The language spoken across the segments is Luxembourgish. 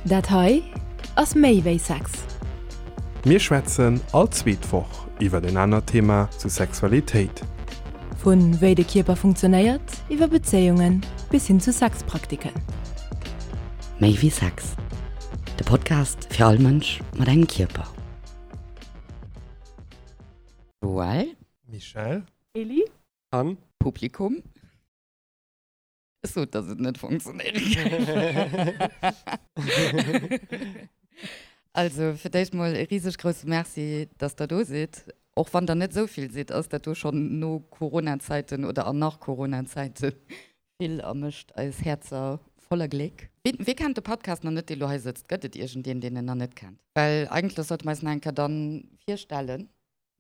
Dat hei ass méi wéi Sex. Mir schwätzen all zweet Woch iwwer en anert Thema zu Sexualitéit. Vu wéi de Kierper funktionéiert, iwwer Bezéiungen bis hin zu Sexpraktiken. Méi wéi Sex, de Podcast fir all Mënsch mat engem Kierper. Joël. Michèle. Elli. An. Publikum. Ech sot, dass et net funktionéiere géif. Also, fir d'éischt mol e riseg grousse Merci, dass Der do sidd. Och wann Der net esou vill sidd, ass dat do schonn no Corona-Zäiten oder an nach Corona-Zäite vill a mécht eis Häerzer voller Gléck. Wee kennt de Podcast nach net, dee lo hei sëtzt? Gëtt et iergendeen, deen en nach net kennt? Well eigentlech sollte mer eis nach eng Kéier dann virstellen.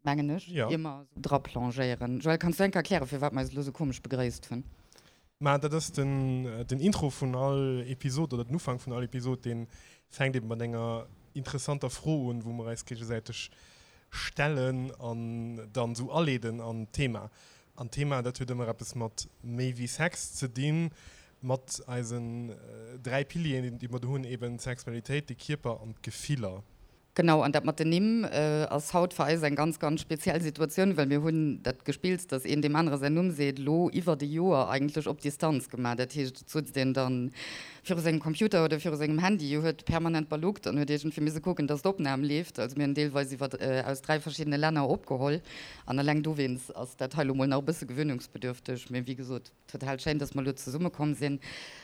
mengen ech, Ja. ier mer esou dra plongéieren. Joël, kanns du eng Kéier erklären, firwat mer eis elo esou komesch begréisst hunn? Mä dat ass den, den Intro vun all Episod oder den Ufank vun all Episod, dee fänkt eben mat enger interessanter Fro un, wou mer eis géigesäiteg stellen an dann esou aleeden an d'Thema. An d'Thema, dat huet ëmmer eppes mat méi wéi Sex ze dinn, mat eisen 3 Pilieren, déi mer do hunn, eben d'Sexualitéit, de Kierper an d'Gefiller. Genau, an dat mat den Nimm ass haut fir eis eng ganz, ganz speziell Situatioun, well mir hunn dat Gespills, dass een deem anere säin Numm seet, elo iwwert e Joer eigentlech op Distanz gemaach. Dat heescht, et sutzt een dann viru sengem Computer oder viru sengem Handy, huet permanent baluckt an huet iergendwéi misse kucken, dass d'Opnam leeft. Also mir hunn deelweis iwwer aus 3 verschiddene Länner opgeholl an eleng dowéinst ass dat hei elo mol nach e bësse gewöhnungsbedürfteg. Mee wéi gesot, Total schéin, dass mer elo zesumme komm sinn.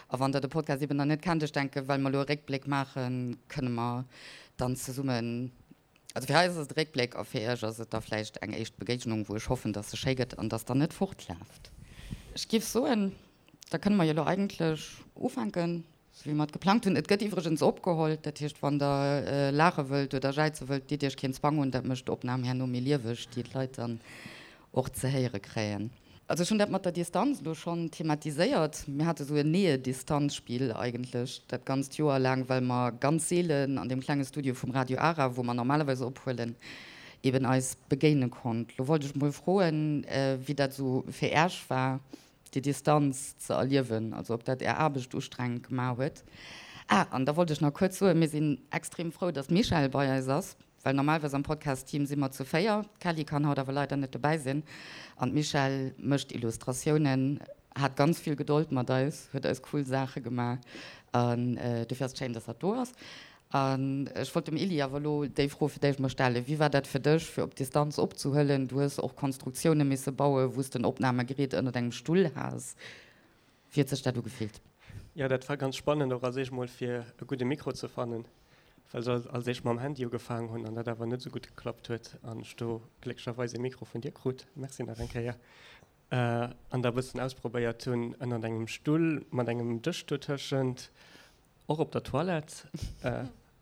A wann der de Podcast eben nach net kennt, ech denken, well mer elo e Réckbléck maachen, kënne mer dann zesummen, also fir eis ass et e Réckbléck a fir iech ass et da vläicht eng éischt Begéignung, wou ech hoffen, dass se schéi gëtt an dass der net fortlaaft. Ech giff soen, da kënne mer jo elo eigentlech ufänken, sou wéi mer et geplangt hunn. Et gëtt iwwregens opgeholl, dat heescht, wann der laache wëllt oder jäize wëllt, ditt iech keen Zwang un, dat mécht d'Opnam herno méi lieweg, déi d'Leit dann och ze héiere kréien. Also ech hunn dat mat der Distanz elo schonn thematiséiert. Mir hate sou en Nähe-Distanz-Spill eigentlech dat ganzt Joer laang, well mer ganz seelen an deem klenge Studio vum Radio Ara, wou mer normalerweis ophuelen, eben eis begéine konnt. Lo wollt ech mol froen, wéi dat esou fir Äech war, déi Distanz ze erliewen, also ob dat Är Aarbecht ustrengend gemaach huet. Ah, an da wollt ech nach kuerz soen, mir sinn extrem frou, dass d'Michèle bei eis ass, well normalerweis am Podcast-Team si mer zu 4. D'Kelly kann haut awer leider net dobäi sinn an d'Michèle mécht Illustratiounen, hat ganz vill Gedold mat eis, huet eis cool Saache gemaach an dofir ass et schéin, dass hatt do ass. An ech wollt dem Elie awer elo déi Fro fir d'éischt mol stellen, Wéi war dat fir dech, fir op Distanz opzehuelen? Du hues och Konstruktioune misse bauen, wou s de en Opnamegerät ënnert engem Stull has. Wéi huet sech dat ugefillt? Jo, dat war ganz spannend, och als éischt mol fir e gudde Mikro ze fannen, well ech als éischt mam Handy ugefaangen hunn an dat awer net esou gutt geklappt huet an ech do glécklecherweis e Mikro vun dir krut, Merci nach eng Kéier, an da e bëssen ausprobéiert hunn ënnert engem Stull mat engem Dësch dotëschent. Och op der Toilette,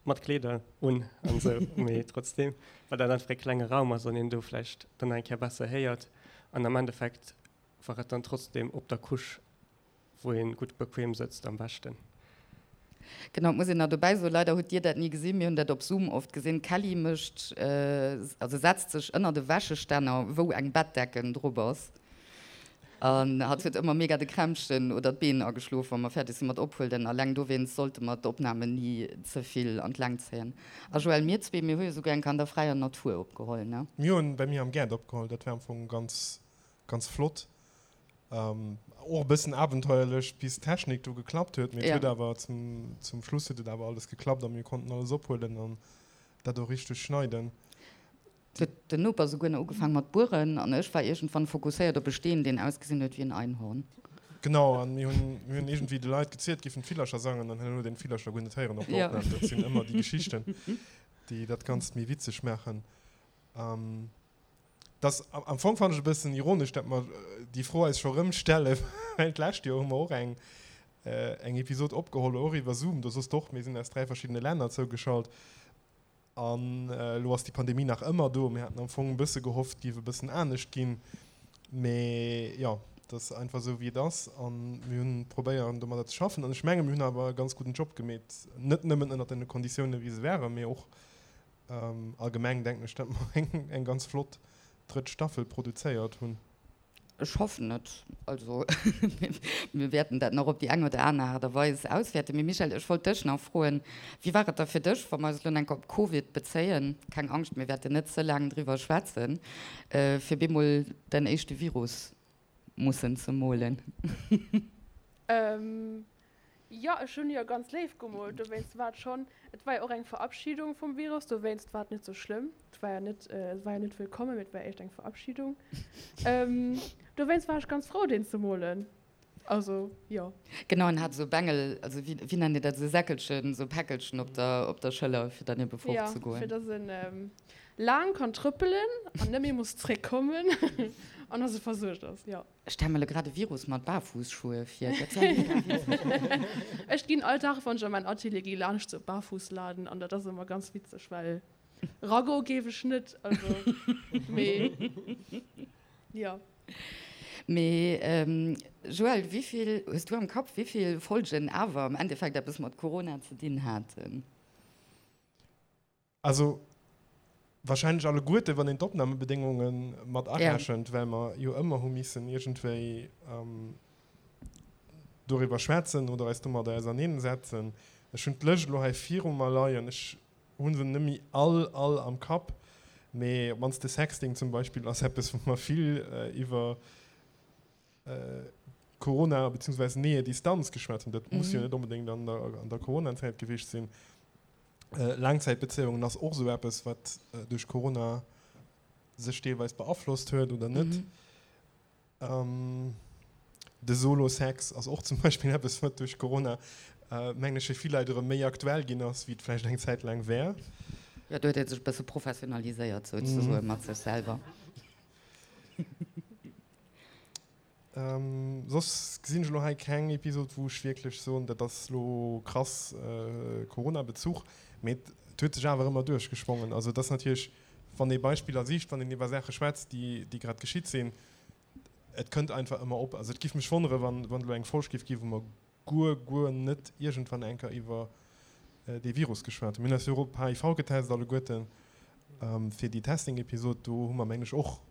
mat Kleeder un an esou, mee trotzdem, well dat einfach e klenge Raum ass an een do vläicht dann nach eng Kéier besser héiert. An am Endeffekt war et dann trotzdem op der Couche, wou ee gutt bequem sëtzt, am beschten. Genau, et muss een nach dobäi soen, leider hutt Dir dat ni gesinn, mir hunn dat op Zoom oft gesinn, d'Kelly mécht, also setzt sech ënnert e Wäschestänner, wou eng Bettdecken drop ass. An hatt huet ëmmer mega de Krämpchen oder d'Been ageschlof, wa mer fäerdeg si mat ophuelen. Alleng dowéinst sollte mer d'Opnamen ni ze vill an d'Längt zéien. A Joël, mir zwee, mir hu jo souguer eng Kéier an der fräier Natur opgeholl, ne? Mir hunn bei mir am Gaart opgeholl. Dat war am Fong ganz, ganz flott. Och e bëssen abenteuerlech, bis d'Technik do geklappt huet. Mee et huet awer zum, zum Schluss huet et awer alles geklappt a mir konnten alles ophuelen an dat och richteg schneiden. Et huet den Noper souguer nach ugefaang mat bueren an ech war iergendwann fokusséiert op e Steen, deen ausgesinn huet wéi en Einhorn. Genau, an mir hunn mir hunn iergendwéi de Leit gezielt, géifen d'Villercher sangen, an herno huet een d'Villercher guer net héieren op der Opnam. Dat sinn ëmmer déi Geschichten, déi dat Ganzt méi witzeg maachen. Dass, am Fong fannen ech e bëssen ironesch, dat mer déi Fro eis scho rëm stellen, well d'lescht Joer hu mer och eng eng Episod opgeholl, och iwwer Zoom, do soss de och, mir sinn aus 3 verschiddene Länner zougeschalt. An elo ass déi Pandemie nach ëmmer do. Mir haten am Fong e bësse gehofft, et géif e bëssen anescht ginn. Mee jo, et ass einfach esou, wéi et ass. A mir hunn probéieren, domadder ze schaffen. An ech menge mir hunn awer e ganz gudden Job gemeet. Net nëmmen ënnert den Konditiounen, wéi se waren, mee och allgemeng, denken ech, datt mer eng ganz flott drëtt Staffel produzéiert hunn. Ech hoffen et. Also, mir wäerten dat nach op déi eng oder aner Aart a Weis auswäerten. Mee Michèle, ech wollt dech nach froen, Wéi war et da fir dech, wa mer eis elo enk op Covid bezéien, keng Angscht, mir wäerten net ze laang driwwer schwätzen, fir bemol däin éischte Virus mussen ze molen? Jo, ech hunn jo ganz léif gemoolt, dowéinst war et schonn, et war jo och eng Verabschiedung vum Virus, dowéinst war et net sou schlëmm. Et war jo net, et war jo net wëllkommen, mee et war éischt eng Verabschiedung. Dowéinst war ech ganz frou, deen ze molen. Also, jo. Genau, en hat esou Bengel, also wéi, wéi nennt Dir dat, esou Säckelchen, esou Päckelchen op der, op der Schëller, fir dann ebe fortzegoen. Jo, fir dass en laang kann trëppelen an net méi muss zréckkommen an dass e versuergt ass, jo. Ech stelle mer lo grad e Virus mat Barfußschuhe vir. Dat wär mega witzeg. Ech ginn all Dag, wann ech an mäin Atelier gi, laanscht sou Barfußladen an dat ass ëmmer ganz witzeg, well ragoe géif ech net, also mee jo. Mee Joël, wéivill hues du am Kapp, wéivill Folgen awer am Endeffekt eppes mat Corona ze dinn haten? Also wahrscheinlech alleguerte, wann een d'Opnamebedéngunge mat arechent, well mer jo ëmmer hu missen iergendwéi doriwwer schwätzen oder eis domadder auserneensetzen. Ech hunn d'Lëscht elo hei viru mer leien. Ech hu se net méi all, all am Kapp, mee op d'mannst de Sexting zum Beispill ass eppes, wou mer vill iwwer Corona beziehungsweise Nähe Distanz geschwat hunn. Dat muss jo net onbedéngt an der, an der Corona-Zäit gewiescht sinn. Laangzäitbezéiungen ass och esou eppes, wat duerch Corona sech deelweis beaflosst huet oder net. De Solo-Sex ass och zum Beispill eppes, wat duerch Corona, mengen ech, fir vill Leit erëm méi aktuell ginn ass, wéi et vläicht eng Zäit laang war. Jo, do huet ee sech e bësse professionaliséiert souzesoen mat sech selwer. Soss gesinn ech elo hei keng Episod, wou ech wierklech soen, dat ass elo krass Corona-Bezuch. Mee et huet sech awer ëmmer duerchgeschwongen. Also et ass natierlech, wann ee Beispiller sicht, wann een iwwer Saache schwätzt, déi, déi grad geschitt sinn, et kënnt einfach ëmmer op. Also et giff mech wonnere, wann, wann et elo eng Folg giff ginn, wou mer guer, guer net iergendwann eng Kéier iwwer dee Virus geschwat hunn. Mir hunn eis jo och op HIV getest alleguerten fir déi Testing-Episod. Do hu mer, mengen ech, och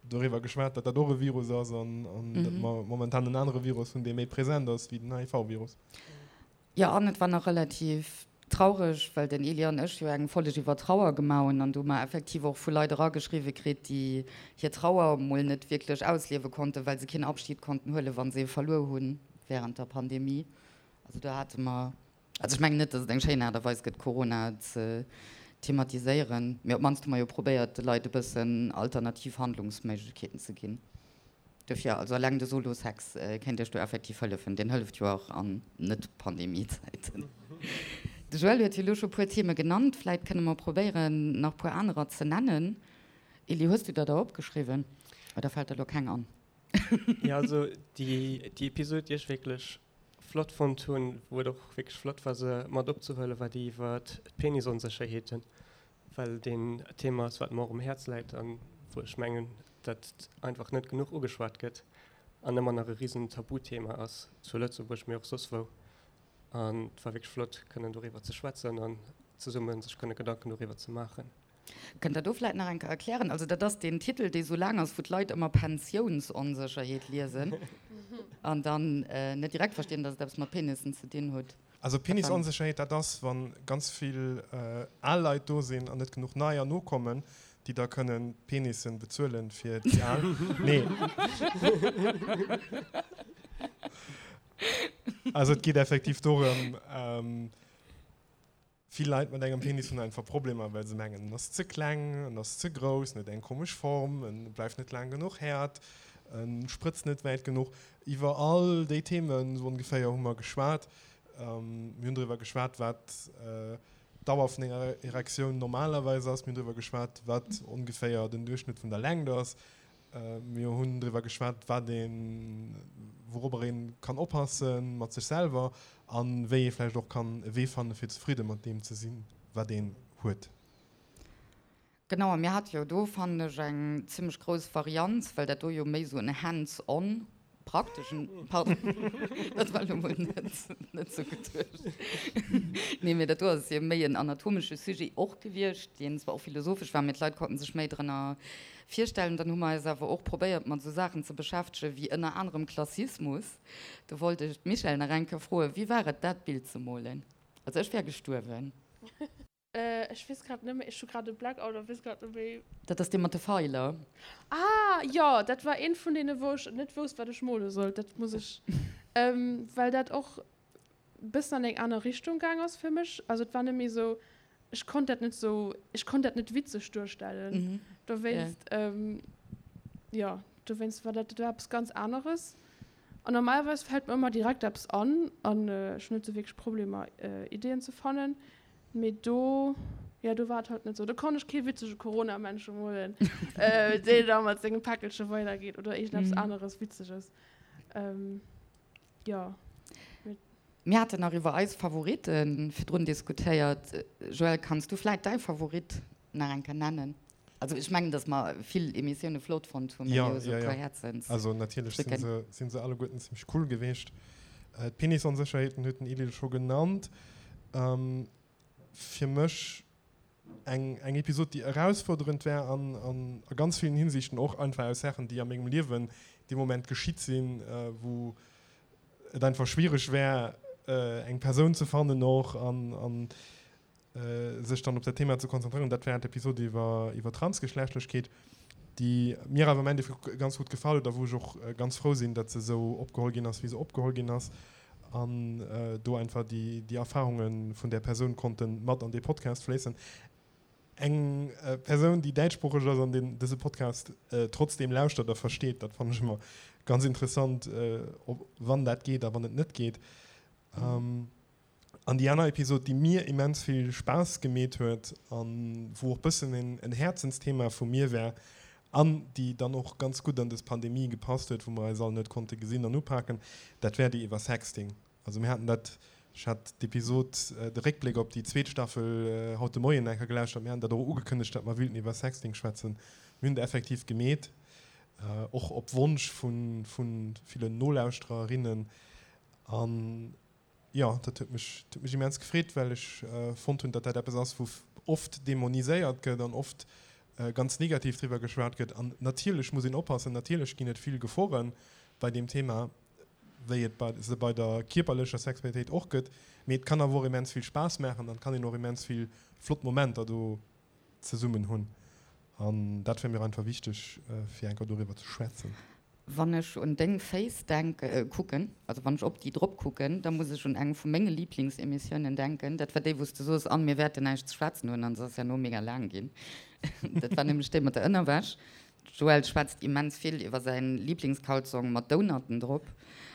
doriwwer geschwat, datt dat och e Virus ass an datt mer momentan en anere Virus hunn, dee méi present ass wéi den HIV-Virus. Jo, an et war nach relativ traureg, well den Elie an ech jo eng Folleg iwwer Trauer gemaach hunn an do hu mer effektiv och vu Leit erageschriwwe kritt, déi hir Trauer mol net wierklech ausliewe konnten, well se keen Abschied konnten huelen, wa se ee verluer hunn wärend der Pandemie. Also do hate mer Also ech mengen net, datt et eng schéin Aart a Weis gëtt, Corona ze thematiséieren, mee op d'mannst hu mer jo probéiert, de Leit e bëssen alternativ Handlungsméiglechkeeten ze ginn. Dofir, also eleng de Solo-Sex kéint Iech do effektiv hëllefen. Deen hëlleft jo och an Net-Pandemie-Zäiten. De Joël huet jo elo scho puer Theme genannt, vläit kënne mer probéieren, nach puer anerer ze nennen. Elie, hues du der der opgeschriwwen oder fält der elo keng an? Jo, also déi Episod, déi ech wierklech flott fonnt hunn, wou et och wierklech flott war se mat opzehuelen, war déi iwwer d'Penisonsécherheeten, well deen e Thema ass, wat mer och um Häerz läit an wou ech mengen, dat einfach net genuch ugeschwat gëtt an ëmmer nach e risen Tabuthema ass zu Lëtzebuerg, mee och soss wou. An et war wierklech flott kënnen doriwwer ze schwätzen an zesumme sech kënne Gedanken doriwwer ze maachen. Kënnt Der do vläit nach eng Kéier erklären? Also dat ass deen Titel, dee sou laang ass, wou d'Leit ëmmer Pensiounsonsécherheet liesen an dann net direkt verstinn, datt et eppes mat Penissen ze dinn huet. Also Penisonsécherheet, dat ass, wa ganz vill al Leit do sinn an net genuch neier nokommen, déi da kënnen d'Penissen bezuelen fir déi al. Nee. Also et geet effektiv dorëm, Vill Leit mat engem Penis hunn einfach Problemer, well se mengen, en ass ze kleng, en ass ze grouss, en huet eng komesch Form, en bleift net laang genuch häert, en sprëtzt net wäit genuch. Iwwer all déi Themen esou ongeféier hu mer geschwat. Mir hunn driwwer geschwat, wat d'Dauer vun enger Erektioun normalerweis ass. Mir hunn driwwer geschwat, wat ongeféier den Duerchschnëtt vun der Längt ass. Mir hunn driwwer geschwat, wat een, wourobber een kann oppasse mat sech selwer an wéi ee vläicht och kann e Wee fanne fir zefridde mat deem ze sinn, wat een huet. Genau, a mir hate jo do, fannen ech, eng zimmlech grouss Varianz, well dat do jo méi esou en hands-on prakteschen, pardon, dat war elo mol net, net sou geduecht. Nee, mee dat do ass jo méi en anatomesche Sujet och gewiescht, deen zwar och philosophesch war, mee d'Leit konnten sech méi drënner virstellen. Dann hu mer eis awer och probéiert, mat esou Saachen ze beschäftegen, wéi ënner anerem Klassismus. Do wollt ech d'Michèle nach eng Kéier froen, Wéi war et, dat Bild ze molen? Also ech wär gestuerwen. Ech weess grad net méi, ech hu grad e Blackout a weess grad net méi. Dat ass dee mat de Feiler. Ah jo, dat war eent vun deene wou ech net wousst wat ech mole sollt. Dat muss ech, well dat och bëssen an eng aner Richtung gaang ass fir mech. Also et war net méi esou, ech konnt dat net esou, ech konnt dat net witzeg duerstellen. Dowéinst, jo, dowéinst war dat, dat war eppes ganz aneres. An normalerweis fält mer ëmmer direkt eppes an an ech hunn net esou wierklech Problemer Ideeën ze fannen. Mee do, jo, do war et halt net esou. Do konnt ech kee witzege Corona-Männche molen, deen da mat sengem Päckelche weidergeet oder iergendeppes aneres Witzeges. Jo. Mir haten nach iwwer eis Favoritte virdrun diskutéiert. Joël, kanns du vläit däi Favorit nach eng Kéier nennen? Also ech mengen, datt mer vill Emissioune flott fonnt hunn, mee mir hu sou e puer Häerzensdrücken. Also natierlech sinn se, sinn se alleguerten zimmlech cool geweecht. D'Penisonsécherheeten huet den Edil scho genannt. Fir mech eng, eng Episod, déi erausfuerderend war an, an a ganz villen Hinsichten och einfach aus Saachen, déi a mengem Liewen dee Moment geschitt sinn, wou et einfach schwiereg war, eng Persoun ze fannen och an, an sech dann op dat Thema ze konzentréieren. Dat war d'Episod iwwer, iwwer Transgeschlechtlechkeet, déi mir awer am Endeffekt ganz gutt gefall huet a wou ech och ganz frou sinn, datt se esou opgeholl ginn ass, wéi se opgeholl ginn ass an do einfach déi, déi Erfarunge vun där Persoun konnte mat an dee Podcast fléissen. Eng Persoun, déi däitschsproocheg ass an deen dëse Podcast trotzdeem lauschtert a versteet, dat fannen ech ëmmer ganz interessant, ob, wann dat geet a wann et net geet. An déi aner Episod, déi mir immens vill Spaass gemeet huet an wou och bëssen en Häerzensthema vu mir war an déi dann och ganz gutt an dës Pandemie gepasst huet, wou mer eis all net konnte gesinn an upaken, dat war déi iwwer Sexting. Also mir haten dat, ech hat d'Episod, de Réckbléck op déi zweet Staffel haut de Moien eng Kéier gelauschtert, mir haten dat och ugekënnegt, datt mer wüilten iwwer Sexting schwätzen. Mir hunn et effektiv gemeet, och op Wonsch vu villen Nolauschtererinnen. An Jo, dat huet mech, huet mech immens gefreet, well ech fonnt hunn, datt dat eppes ass, wou oft dämoniséiert gëtt an oft ganz negativ driwwer geschwat gëtt. An natierlech muss een oppassen, natierlech ginn et vill Gefore bei deem Thema, wéi et bei se bei der kierperlecher Sexualitéit och gëtt. Mee et kann awer och immens vill Spaass maachen an et kann een och immens vill flott Momenter do zesummen hunn. An dat wär mir einfach wichteg, fir eng Kéier doriwwer ze schwätzen. Wann ech un deng Féiss denken, kucken, also wann ech op déi drop kucken, da muss ech un eng vu menge Liblingsemissiounen denken. Dat war déi, wou s de soos, an mir wäerten näischt ze schwätzen hunn, an se ass herno mega laang ginn. Dat war nämlech déi mat der Ënnerwäsch. D'Joëlle schwätzt immens vill iwwer säi Liblingskalzong mat Donutten drop.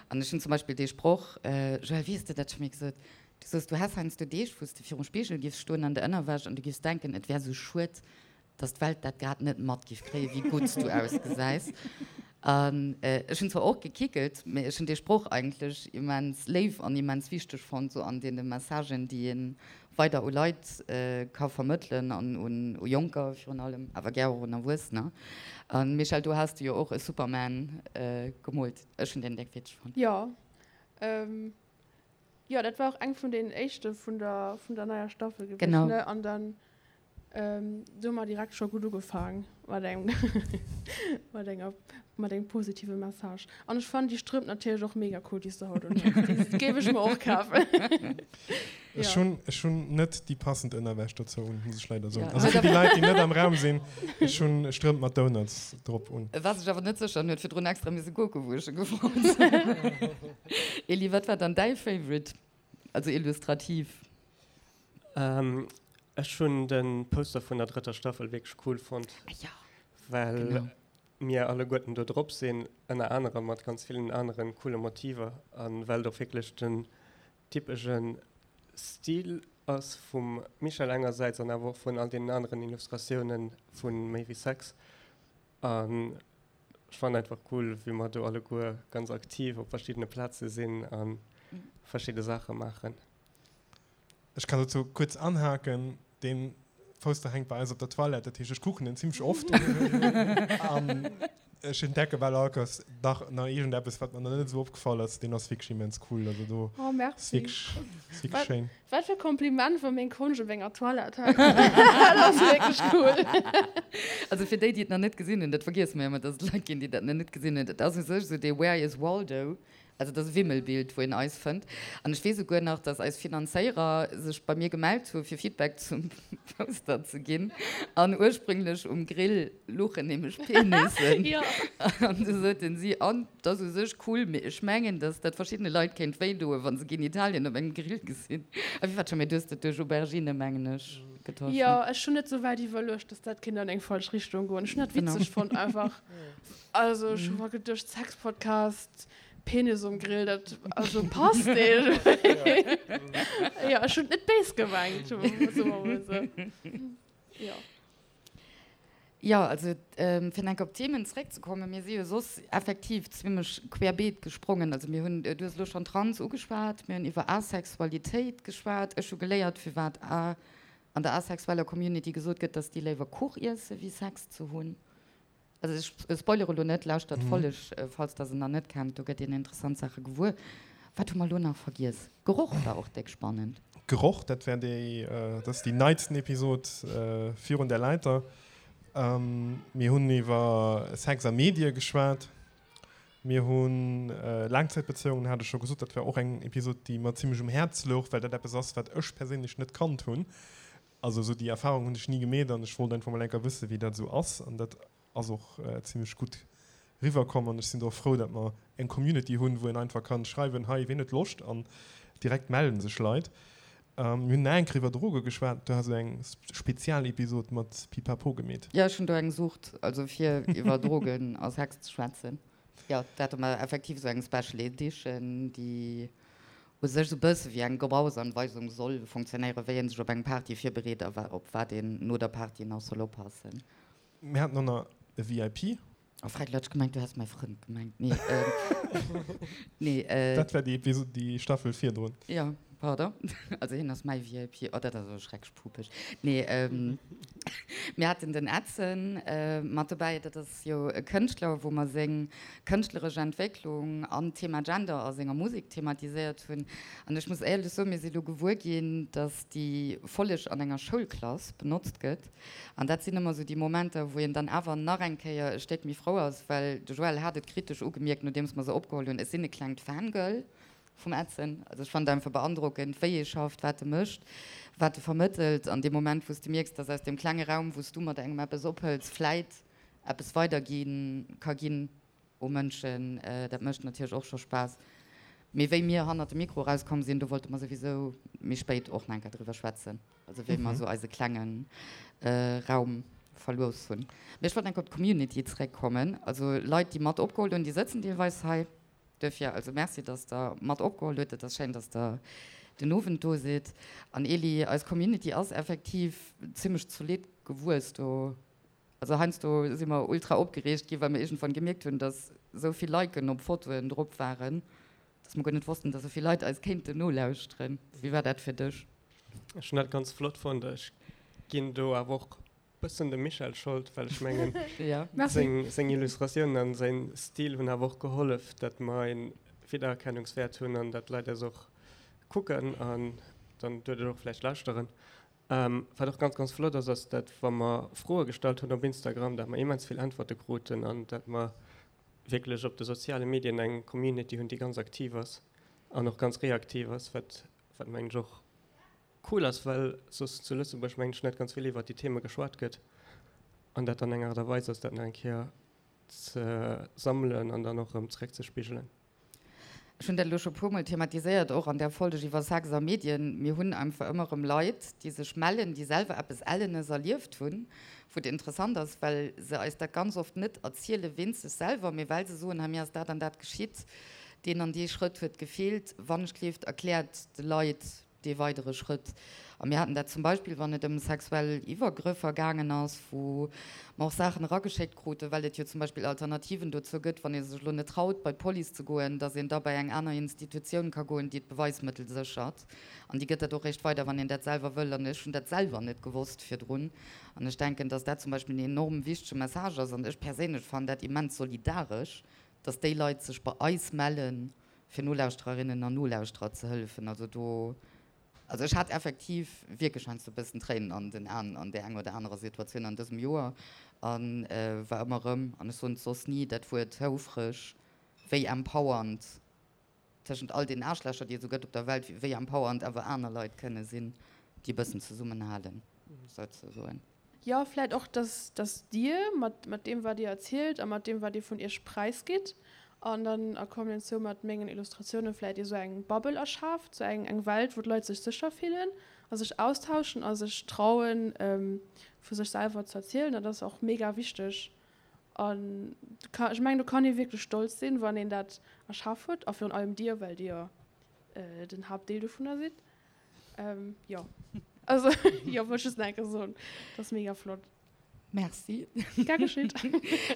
An ech hunn zum Beispill dee Sproch, Joëlle, wéi hues de dat scho méi gesot? Du soos, du häss heiansdo Deeg, wou s de virum Spigel giffs stoen an der Ënnerwäsch an du giffs denken, et wär sou schued, dass d'Welt dat grad net mat giff kréien, wéi gutt s du ausgesäis. An ech hunn zwar och gekickelt, mee ech hunn dee Sproch eigentlech immens léif an immens wichteg fonnt, sou an deene Messagen, déi ee weider u Leit ka vermëttelen an u Jonker virun allem, awer gär och un Erwuessener. A Michèle, do has de jo och e Superman gemoolt. Ech hunn deen déck witzeg fonnt. Jo, jo, dat war och eng vun deenen éischte vun der, vun der neier Staffel gewiescht, ne? An dann Do hu mer direkt scho gutt ugefaang mat engem mat enger mat engem positive Message. An ech fannen déi Strëmp natierlech och mega cool, déi s de haut un hues. Déi géif ech mer och kafen. Ech hunn ech hunn net déi passend Ënnerwäsch dozou un, muss ech leider soen. Also fir déi Leit, déi net am Raum sinn, ech hunn Strëmp mat Donuts drop un. E war sech awer net sécher an huet virdrun extra misse kucken, wou ech e gefrot hunn. Elie, wat war dann däi Favorite? Also illustrativ. Ech hunn de Poster vun der drëtter Staffel wierklech cool fonnt, well mir alleguerten do drop sinn, ënner anerem mat ganz villen anere coole Motiver a well et och wierklech den typesche Stil ass vum Michèle engersäits an awer och vun all deenen aneren Illustratioune vu Méi wéi Sex. An ech fannen einfach cool, wéi mer do alleguer ganz aktiv op verschiddene Plaze sinn a verschidde Saache maachen. Ech kann dozou kuerz anhaken, Dee Poster hänkt bei eis op der Toilette, dat heescht, ech kucken en zimmlech oft. An. Ech entdecke bal all Kéiers nach nach iergendeppes, wat mer nach net esou opgefall ass. Deen ass wierklech immens cool. Also do Oh, ass merci. wierklech, ass wierklech Wat, schéin. wat fir Kompliment, wa meng Konscht op enger Toilette hänkt. Dat ass wierklech cool. Also fir déi, déi et nach net gesinn hunn, dat vergiesse mer jo ëmmer, dass et Leit ginn, déi dat nach net gesinn hunn, dat ass u sech esou dee Where is Waldo? Also et ass e Wimmelbild, wou een eis fënnt. An ech weess esouguer nach, dass eis Finanzéierer sech bei mir gemellt hu fir Feedback zum Poster ze ginn. An ursprünglech um Grill luchen nämlech Penissen. An du soten si, an et ass u sech cool, mee ech mengen, dass dat verschiddene Leit kéint wéi doen, wa se Genitalien op engem Grill gesinn. A wéi war dat scho méi? Du hues dat duerch Aubergine, mengen ech, getosch, Jo, ne? ech hunn net sou wäit iwwerluecht, dass dat kéint an eng falsch Richtung goen. Ech hunn dat witzeg fonnt einfach. Also ech hu mer geduecht, Sexpodcast, Penis um Grill, dat also passt irgendwie. Jo, ech hunn et net béis gemengt, soe mer mol esou. Jo. Jo, also fir nach eng Kéier op d'Themen zeréckzekommen, mir si jo soss effektiv zimlech querbeet gesprongen. Also mir hunn, du hues elo schonn Trans ugeschwat, mir hunn iwwer Asexualitéit geschwat, ech hu geléiert firwat a an der asexueller Community gesot gëtt, datt déi léiwer Kuch iesse wéi Sex ze hunn. Also ech spoilere elo net, lauschtert d'Folleg, falls der se nach net kennt, do gëtt een interessant Saache gewuer. Wat hu mer elo nach vergiess? Geroch war och déck spannend. Geroch, dat war déi, dat ass déi neitsten Episod virun der Leiter. Mir hunn iwwer Sex a Medie geschwat. Mir hu Laangzäitbezéiungen, hat ech scho gesot, dat war och eng Episod, déi mer zimmlech um Häerz louch, well dat eppes ass, wat ech perséinlech net kannt hunn. Also esou déi Erfahrung hunn ech ni gemeet an ech wollt einfach mol enker wëssen, wéi dat esou ass an dat ass och zimlech gutt riwwer komm an ech sinn do och frou, dat mer eng Community hunn, wou een einfach kann schreiwen, hei ween huet Loscht an direkt mellen sech Leit. Mir hunn nach eng Kéier iwwer Droge geschwat, du has esou eng Spezialepisod mat Pipapo gemeet. Jo, ech hunn do eng Sucht, also fir iwwer Drogen a Sex ze schwätzen. Jo, do hate mer effektiv esou eng Special Edition, déi u sech esou bësse wéi eng Gebrauchsanweisung soll fonctionnéieren, wéi ee sech op eng Party virbereet a op wat een no der Party nach soll oppassen. Mir haten och nach e VIP. Oh Fred, elo hat ech gemengt, du häss mäi Frënd gemengt. Nee, nee. Dat war déi Episod, déi Staffel virdrun. Jo, pardon. Also hien ass mäi VIP. Oh, dat ass awer schrecklech pupeg. Nee, mir haten den Edson mat dobäi. Dat ass jo e Kënschtler, wou mer seng kënschtleresch Entwécklung an d'Thema Gender a senger Musek thematiséiert hunn. An ech muss éierlech soen, mir si lo gewuer ginn, dass déi Folleg an enger Schoulklass benotzt gëtt. An dat sinn ëmmer esou déi Momenter, wou een dann awer nach eng Kéier e Stéck méi frou ass, well de Joël hat et kritesch ugemierkt, nodeems mer se opgeholl hunn, ech sinn e klengt Fangirl vum Edson. Also ech fannen et einfach beandrockend, wéi e schafft, wat e mécht, wat e vermëttelt. An dee Moment, wou s de mierks, dass aus deem klenge Raum, wou s du mat engem eppes ophëls, vläit eppes weidergi ka ginn u Mënschen, dat mécht natierlech och scho Spaass. Mee wéi mir hannert dem Mikro erauskomm sinn, do wollte mer souwisou méi spéit och nach eng Kéier driwwer schwätzen, also wéi mer esou eise klenge Raum verlooss hunn. Mee ech wollt nach eng Kéier op d'Community zeréckkommen. Also Leit, déi mat opgeholl hunn, déi sëtzen deelweis hei. Duerfir also Merci, dass Der mat opgeholl hutt. Et ass schéin, dass Der den Owend do sidd. An Elie, eis Community ass effektiv zimmlech zolidd gewuess do. Also heiansdo si mer ultra opgereegt gi well mer iergendwann gemierkt hunn, dass esou vill Liken op Fotoen drop waren, dass mer guer net wossten, dass esou vill Leit eis kéinten nolauschteren. Wéi war dat fir dech? Ech hunn dat ganz flott fonnt. Ech ginn do awer och bëssen dem Michèle Schold, well ech mengen seng seng Illustratiounen an säin Stil hunn awer och gehollef, dat mer een Wiedererkennungswäert hunn an dat d'Leit eis och kucken an dann duerduerch och vläicht lauschteren. Wat och ganz, ganz flott ass, ass dat wa mer Froe gestallt hunn op Instagram, dat mer immens vill Äntwerte kruten an dat mer wierklech op de soziale Medien eng Community hunn, déi ganz aktiv ass an och ganz reaktiv ass, wat wat mengen ech och cool ass, well soss zu Lëtzebuerg mengen ech net ganz vill iwwert déi Theme geschwat gëtt an dat dann eng Aart a Weis ass, dat nach eng Kéier ze sammelen an dann och erëm zeréckzespigelen. Ech hunn dat elo scho puermol thematiséiert, och an där Folg iwwer Sex a Medien. Mir hunn einfach ëmmer erëm Leit, déi sech mellen, déi selwer eppes Ellenes erlieft hunn, wou et interessant ass, well se eis dat ganz oft net erziele wéinst sech selwer, mee well se soen, hei mir ass dat an dat geschitt, deen an dee Schrëtt huet gefeelt. Wannechgleeft, erkläert de Leit. dee weidere Schrëtt. A mir haten dat zum Beispill, wann et ëm sexuell Iwwergrëffer gaangen ass, wou mer och Saachen erageschéckt kruten, well et jo zum Beispill Alternativen dozou gëtt, wann ee sech elo net traut, bei d'Police ze goen, dass een da bei eng aner Institutioun ka goen, déi d'Beweismëttel séchert. An déi gëtt dat och réischt weider, wann een dat selwer wëll. An ech hunn dat selwer net gewosst virdrun. An ech denken, dass dat zum Beispill en enorm wichtege Message ass. An ech perséinlech fannen dat immens solidaresch, dass déi Leit sech bei eis mellen, fir Nolauschtererinnen an Nolauschterer ze hëllefen. Also do, also ech hat effektiv wierklech heiansdo e bëssen Tréinen an den Aen an där enger oder anerer Situatioun an dësem Joer a war ëmmer erëm, an ech soen et soss ni, dat Wuert houfreg, wéi empowernd tëschent all den Aarschlächer, déi et esou gëtt op der Welt, wéi empowernd awer aner Leit kënne sinn, déi e bëssen zesummenhalen, souzesoen. Jo, vläit och, dass, dass Dir mat, mat deem, wat Dir erzielt a mat deem, wat Dir vun Iech präisgitt, an dann a Kombinatioun mat mengen Illustratiounen vläit Dir sou eng Bubble erschaaft, sou eng, eng Welt, wou d'Leit sech sécher fillen a sech austauschen a sech trauen, vu sech selwer ze erzielen. Dat ass och mega wichteg. An ech mengen, do kann ee wierklech stolz sinn, wann een dat erschaf huet, a virun allem Dir, well Dir den Haaptdeel dovunner sidd. Ähm, jo. Also, jo, wollt just nach eng Kéier soen, dat ass mega flott. Merci. Gär geschitt.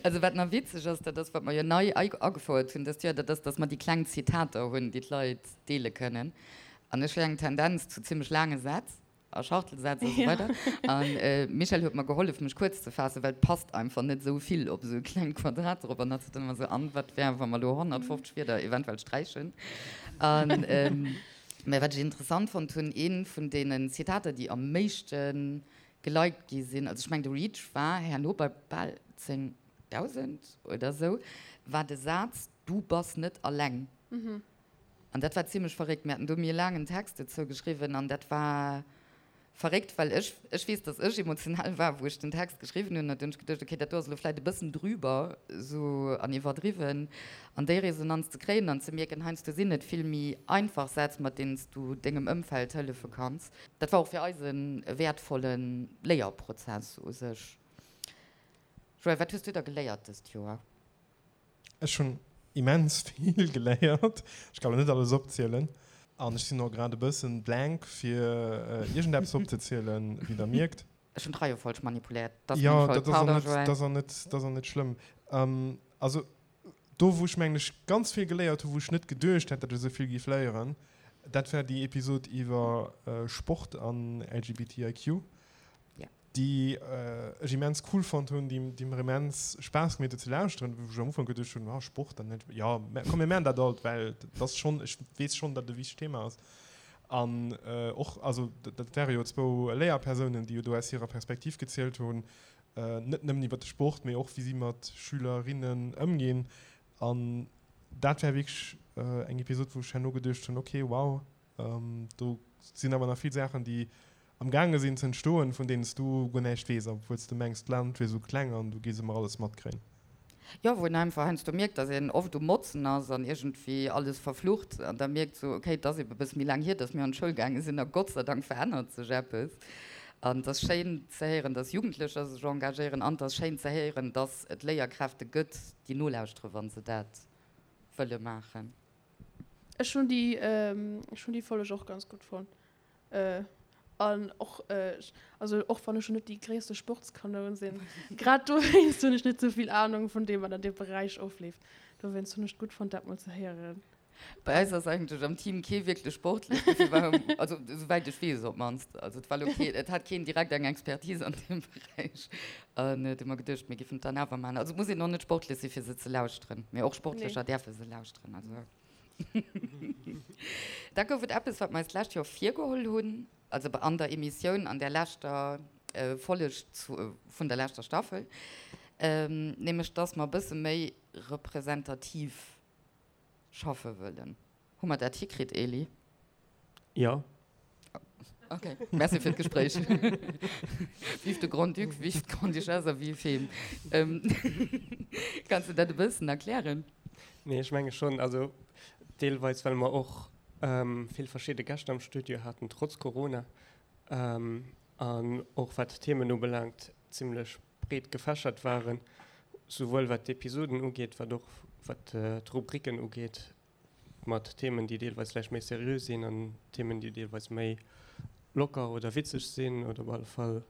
Also wat nach witzeg ass, dat ass, wat mer jo nei agefouert hunn dëst Joer, dat ass, dass mer déi kleng Zitater hunn, déi d'Leit deele kënnen. An ech hu eng Tendenz zu zimmlech laange Sätz a Schachtelsätz a sou weider. An d'Michèle huet mer gehollef, mech kuerz ze faassen, well et passt einfach net esou vill op esou e klengt Quadrat drop. An hatt sot dann ëmmer esou, An wat wär, wa mer elo 150 Wierder eventuell sträichen? An Mä wat ech interessant fonnt hunn, ee vun deenen Zitater, déi am méischte geliked gi sinn, also ech mengen de Reach war herno bei bal 10.000 oder esou, war de Saz Du bass net alleng. An dat war zimlech verréckt. Mir haten do méi e laangen Text dozou geschriwwen an dat war Verréckt, well ech, ech weess, dass ech emotional war, wou ech den Text geschriwwen hunn. An du hunn ech geduecht, okay, dat do ass elo vläit e bëssen drüber esou an iwwerdriwwen. An déi Resonanz ze kréien an ze mierken, heiansdo sinn et vill méi einfach Sätz, mat deenen s du dengem Ëmfeld hëllefe kanns. Dat war och fir eis e wäertvolle Léierprozess u sech. Joël, wat hues du da geléiert dëst Joer? Ech hunn immens vill geléiert. Ech kann elo net alles opzielen. An ech sinn och grad e bëssen blank fir iergendeppes opzezielen, wéi der mierkt. Ech hunn d'Reiefolg manipuléiert, dat ass meng Schold. Pardon, Joël. Jo, dat ass och net schlëmm. Also do wou ech mengen ech ganz vill geléiert hunn, wou ech net geduecht hätt, datt ech esou vill géif léieren, dat war déi Episod iwwer Sport an LGBTIQ. déi ech immens cool fonnt hunn, déi, déi mer immens Spaass gemeet huet ze lauschteren, wou ech am Ufank geduecht hunn, ah Sport an net, jo, mä komm mir maachen dat alt, well dat ass schonn, ech weess schonn, datt et e wichtegt Thema ass. An och, also dat ware jo zwou Léierpersounen, déi jo do aus hirer Perspektiv gezielt hunn, net nëmmen iwwer de Sport, mee och wéi si mat Schülerinnen ëmginn. An dat war wierklech eng Episod, wou ech herno geduecht hunn, okay, wow, Do sinn awer nach vill Saachen, déi am gaange sinn ze entstoen, vun deenen s du guer näischt weess, obwuel s du mengs, d'Land wier esou kleng an du géifs ëmmer alles matkréien. Jo, wou een einfach heiansdo mierkt, dass een oft um Motzen ass an iergendwéi alles verflucht an da mierkt sou, okay, et ass ebe bësse méi laang hier, dass mir an d'Schoul gaange sinn a Gott sei Dank verännert sech eppes. An et ass schéin ze héieren, dass Jugendlecher sech engagéieren an et ass schéin ze héieren, dass et Léierkräfte gëtt, déi nolauschteren, wa se dat wëlle maachen. Ech hunn déi, ech hunn déi Folleg och ganz gutt fonnt. An och, also och wann ech lo net déi gréisste Sportskanoun sinn, grad dowéinst hunn ech net sou vill Anung vun deem, wat an deem Beräich ofleeft. Dowéinst hunn ech et gutt fonnt, dat mol ze héieren. Bei eis ass eigentlech am Team kee wierklech sportlech, dofir war, also souwäit ech weess op d'mannst, also et war lo kee, et hat keen direkt eng Expertise an deem Beräich. An du hu mer geduecht, mir giffen et dann awer maachen. Also et muss een och net sportlech si fir se ze lauschteren, mee och Sportlecher däerfe se lauschteren. Also da gouf et eppes, wat mer eis d'lescht Joer virgeholl hunn, also an der Emissioun, an där leschter Folleg vun der leschter Staffel, nämlech dass mer e bësse méi representativ schaffe wëllen. Hu mer dat hikritt, Elie? Jo. Ok, merci fir d'Gespréich. Vive de Grand-Duc, vive d'Grande-Duchesse a vive him. Kanns de dat e bëssen erklären? Nee, ech menge schonn. Also deelweis, well mer och vill verschidde Gäscht am Studio haten, trotz Corona, an och wat d'Themen ubelaangt, zimlech breet gefächert waren, souwuel wat d'Episoden ugeet, wat och wat d'Rubriken ugeet. mat Themen, déi deelweis vläicht méi seriö sinn an Themen, déi deelweis méi locker oder witzeg sinn oder op alle Fall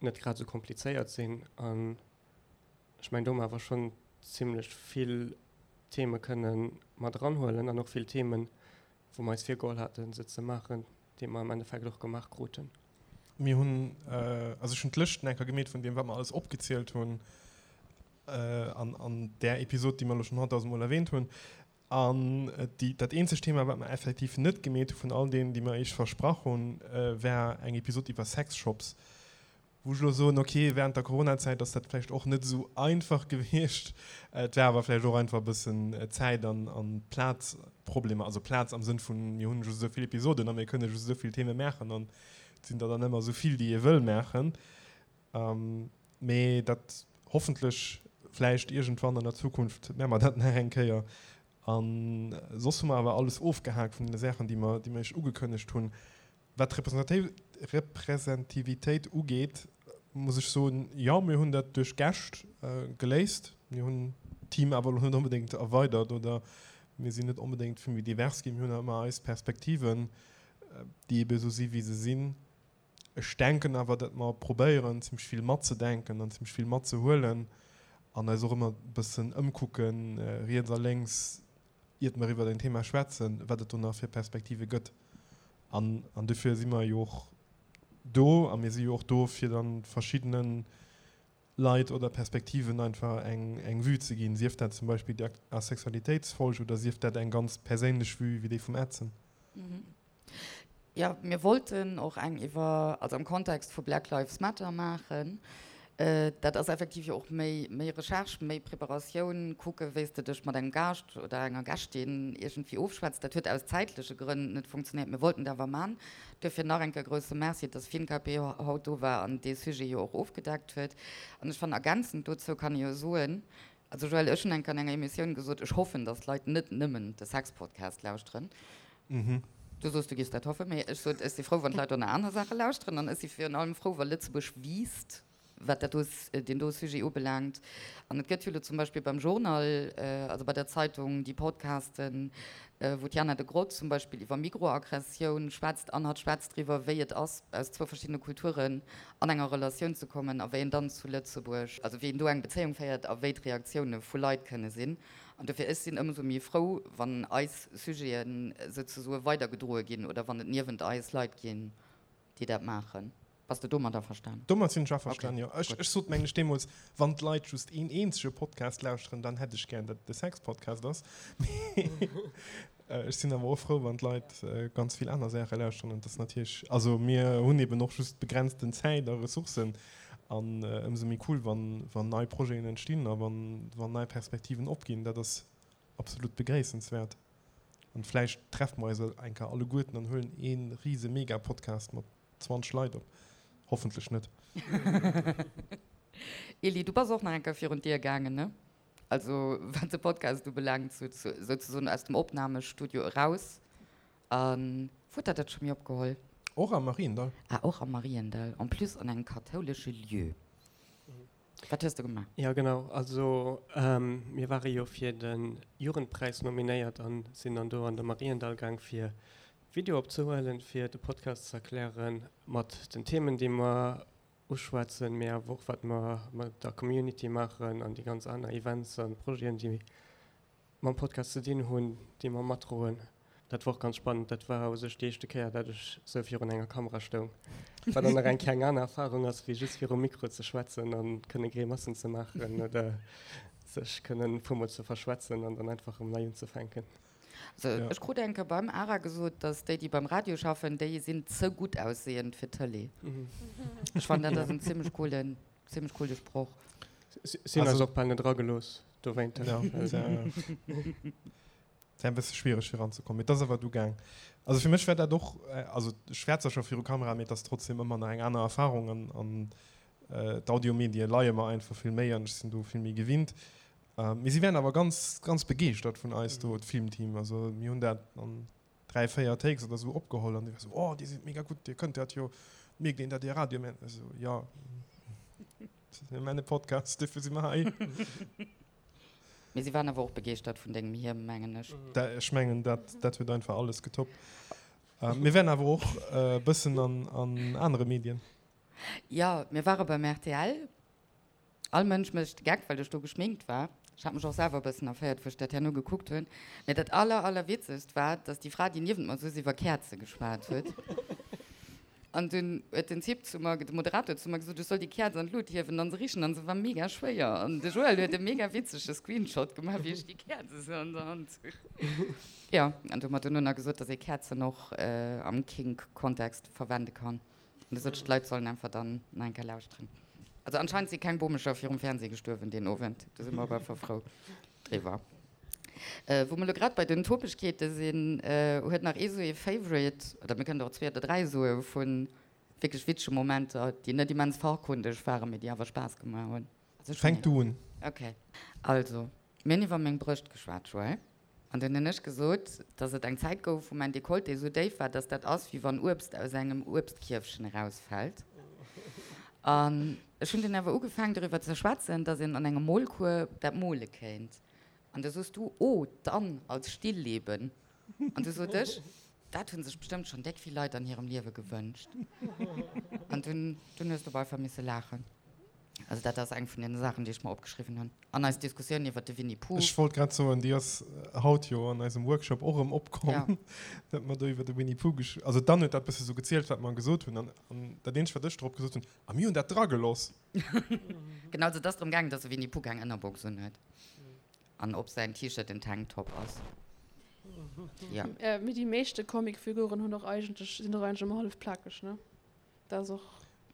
net grad esou komplizéiert sinn. An ech mengen, do hu mer awer schonn zimlech vill Theme kënne mat eranhuelen an och vill Themen, wou mer eis virgeholl haten, se ze maachen, déi mer am Endeffekt och gemaach kruten. Mir hunn, also ech hunn d'Lëschten eng Kéier gemeet vun deem, wat mer alles opgezielt hunn an an där Episod, déi mer elo schonn honnertdausend Mol erwähnt hunn. An déi, dat eenzegt Thema, wat mer effektiv net gemeet hu vun all deenen, déi mer Iech versprach hunn, war eng Episod iwwer Sexshops. Wou ech elo soen, ok, während der Coronazäit ass dat vläicht och net esou einfach gewiescht. Et war awer vläicht och einfach e bëssen Zäit an an Plazproblemer. Also Plaz am Sënn vun, mir hunn just esou vill Episoden a mir kënne just esou vill Theme maachen an et sinn der dann ëmmer esou vill, déi ee wëll maachen. Mee dat hoffentlech vläicht iergendwann an der Zukunft maache mer dat nach eng Kéier. A soss hu mer awer alles ofgehaakt vun deene Saachen, déi mer, déi mer iech ugekënnegt hunn. Wat d'Representivitéit ugeet, muss ech soen, jo, mir hunn dat duerch Gäscht geléist. Mir hunn d'Team awer elo net onbedéngt erweidert oder mir sinn net onbedéngt vill méi divers ginn. Mir hunn nach ëmmer eis Perspektiven, déi ebe esou si wéi se sinn. Ech denken awer, datt mer probéieren, zimmlech vill matzedenken an zimmlech vill matzehuelen an eis och ëmmer e bëssen ëmkucken, riets a lénks, iert mer iwwert en Thema schwätzen, wat et do nach fir Perspektive gëtt. An, an dofir si mer jo och do a mir si jo och do, fir dann verschiddene Leit oder Perspektiven einfach eng, eng Vue ze ginn, sief dat zum Beispill déi Asexualitéitsfolg oder sief dat eng ganz perséinlech Vue wéi déi vum Edson. Jo, mir wollten och eng iwwer, also am Kontext vu Black Lives Matter maachen. Dat ass effektiv jo och méi, méi Recherche, méi Preparatioun, kucke wéi s de dech mat engem Gaascht oder enger Gäschtin iergendwéi ofschwätzt. Dat huet aus zäitleche Grënn net funktionéiert. Mir wollten et awer man. Duerfir nach eng Kéier grousse Merci, dass FinKP haut do war an dee Sujet jo och ofgedeckt huet. An ech fannen, ergänzend dozou kann ee jo soen, also Joël, ech hunn eng Kéier an enger Emissioun gesot, ech hoffen, dass d'Leit net nëmmen de Sex-Podcast lauschteren. Du soos, du giffs dat hoffen, mee ech sot, ech si frou, wann d'Leit och nach aner Saache lauschteren. An ech si virun allem frou, wa Lëtzebuerg wiisst, wat dat do, deen do Sujet ubelaangt. An et gëtt jo elo zum Beispill beim Journal, also bei der Zeitung, déi Podcasten, wou d'Jana Degrott zum Beispill iwwer Mikroaggressioun schwätzt an hatt schwätzt driwwer, wéi et ass, aus zwou verschiddene Kulturen an enger Relatioun ze kommen a wéi een dann zu Lëtzebuerg, also wéi een do eng Bezéiung féiert a wéi d'Reaktioune vu Leit kënne sinn. An dofir, ech sinn ëmsou méi frou, wann eis Sujeten souzesoe weidergedroe ginn oder wann et niewent eis Leit ginn, déi dat maachen. Bass de domat averstan? Domat sinn ech averstanen, jo. Ech sot, mengen ech, deemools, wann d'Leit just een eenzege Podcast lauschteren, dann hätt ech gären, datt et de Sex-Podcast ass. Mee ech sinn awer och frou, wann d'Leit ganz vill aner Saache lauschteren. An et ass natierlech, also mir hunn eben och just begrenzten Zäit a Ressourcen. An ëmsou méi cool, wann nei Projeten entstinn a wann nei Perspektiven opginn. Dat ass absolut begréissenswäert. An vläicht treffe mer eis eng Kéier alleguerten an huelen ee rise Mega-Podcast mat 20 Leit op. Hoffentlech net. Elie, du bass och nach eng Kéier virun d'Dier gaangen, ne? Also wat de Podcast ubelaangt, souzesoen aus dem Opnamestudio eraus. A wou huet der dat scho méi opgeholl? Och am Mariendall. Ah, och am Mariendall, en plus an engem kathoulesche Lieu. Wat hues de gemaach? Jo, genau. Also mir ware jo fir de Jugendpräis nominéiert a sinn dann do an de Mariendall gaang fir Video opzehuelen, fir de Podcast ze erklären mat den Themen, déi mer uschwätzen, mee awer och wat mer mat der Community maachen an déi ganz aner Events a Projeten, déi mam Podcast ze dinn hunn, déi mer matdroen. Dat war och ganz spannend. Dat war u sech déi éischte Kéier, dat ech sou virun enger Kamera stoung, wat dann nach eng Kéier eng aner Erfarung ass, wéi just virum Mikro ze schwätzen a kënne Grimassen ze maachen oder sech kënnen e puermol ze verschwätzen an dann einfach erëm nei unzefänken. Also ech krut eng Kéier beim ARA gesot, dass déi, déi beim Radio schaffen, déi sinn ze gutt aussehend fir d'Tëlee. Ech fannen, dat ass en zimmlech coolen, zimmlech coole Sproch. Si hunn eis och bal net eragelooss dowéinter. Ja, et war e bësse schwiereg fir eranzekommen, mee et ass awer du gaang. Also fir mech war dat och, also ech war zwar scho viru Kamera, mee et ass trotzdem ëmmer nach eng aner Erfarung an, an d'Audiomedie leie mer einfach vill méi an ech sinn do vill méi gewinnt. Mee si waren awer ganz, ganz begeeschtert vun eis do, d'Filmteam. Also mir hunn dat an 3, 4 Takes oder sou opgeholl an déi war sou, oh dir sidd mega gutt, dir kënnt dat jo, mierkt een dat dir Radio maacht? Ech sou, jo, mir maachen e Podcast, dofir si mer hei. Mee si waren awer och begeeschtert vun dengem Hiem, mengen ech. Ech mengen, dat, dat huet einfach alles getoppt. Mir waren awer och e bëssen an, an anere Medien. Jo, mir ware beim rtl. All Mënsch mécht de Geck, well ech do geschminkt war. Ech hat mech och selwer e bëssen erféiert, wou ech dat herno gekuckt hunn. Mee dat aller, allerwitzegst war, dass déi Fra, déi niewent mer souz, iwwer Käerze geschwat huet. An dunn huet den Typ zu mer, de Moderator zu mer gesot, ech soll déi Käerz an d'Lut hiewen an se richen. An se war mega schwéier. An de Joël huet e mega witzege Screenshot gemaach, wéi ech déi Käerz esou an der Hand hunn. Jo, an du huet mer duerno nach gesot, dass ee Käerzen och am Kink-Kontext verwende kann. An du sot ech, d'Leit sollen einfach dann nach eng Kéier lauschteren. Also anscheinend si keng Bomecher virum Fernseh gestuerwen deen Owend. Do si mer op alle Fall frou driwwer. Wou mer elo grad bei den Topegkeete sinn, huet nach ee sou ee Favorite, oder mir kënnen der och zwee oder dräi soe vu wierklech witzege Momenter, déi net immens fachkundeg waren, mee déi awer Spaass gemaach hunn. Also ech hunn Fänk du un. Ok. Also, mir hunn iwwer meng Brëscht geschwat, Joël. An dunn hunn ech gesot, dass et eng Zäit gouf, wou mäin Dekolleté esou déif war, dass dat ass, wéi wann Uebst aus engem Uebstkierfchen erausfält. An ech hunn dunn awer ugefaangen, doriwwer ze schwätzen, dass een an engem Molcours dat mole kéint. An du soos du, Oh, dann als Stillleben. An du sot ech, Dat hu sech bestëmmt schonn déck vill Leit an hirem Liewe gewënscht. An dunn, dunn hues du op einfach misse laachen. Also dat ass eng vun den Saachen, déi ech mer opgeschriwwen hunn. An eis Diskussioun iwwert de Winnie Pooh. Ech wollt grad soen, déi ass haut jo an eisem Workshop och erëm opkomm, ja. dat mer do iwwer de Winnie Pooh gesch also d'Anne huet dat bësse sou gezielt, wat mer gesot hunn. An, an dat eenzegt, wat ech drop gesot hunn, A mir hunn dat drageloss. Genau, also et ass drëm gaangen, dass de Winnie Pooh keng Ënnerbox unhuet. An ob säin T-Shirt en Tanktop ass. Ja. Mee déi meeschte Comicfiguren hunn och eigentlech, sinn och eigentlech ëmmer hallef plakeg, ne? Dat ass och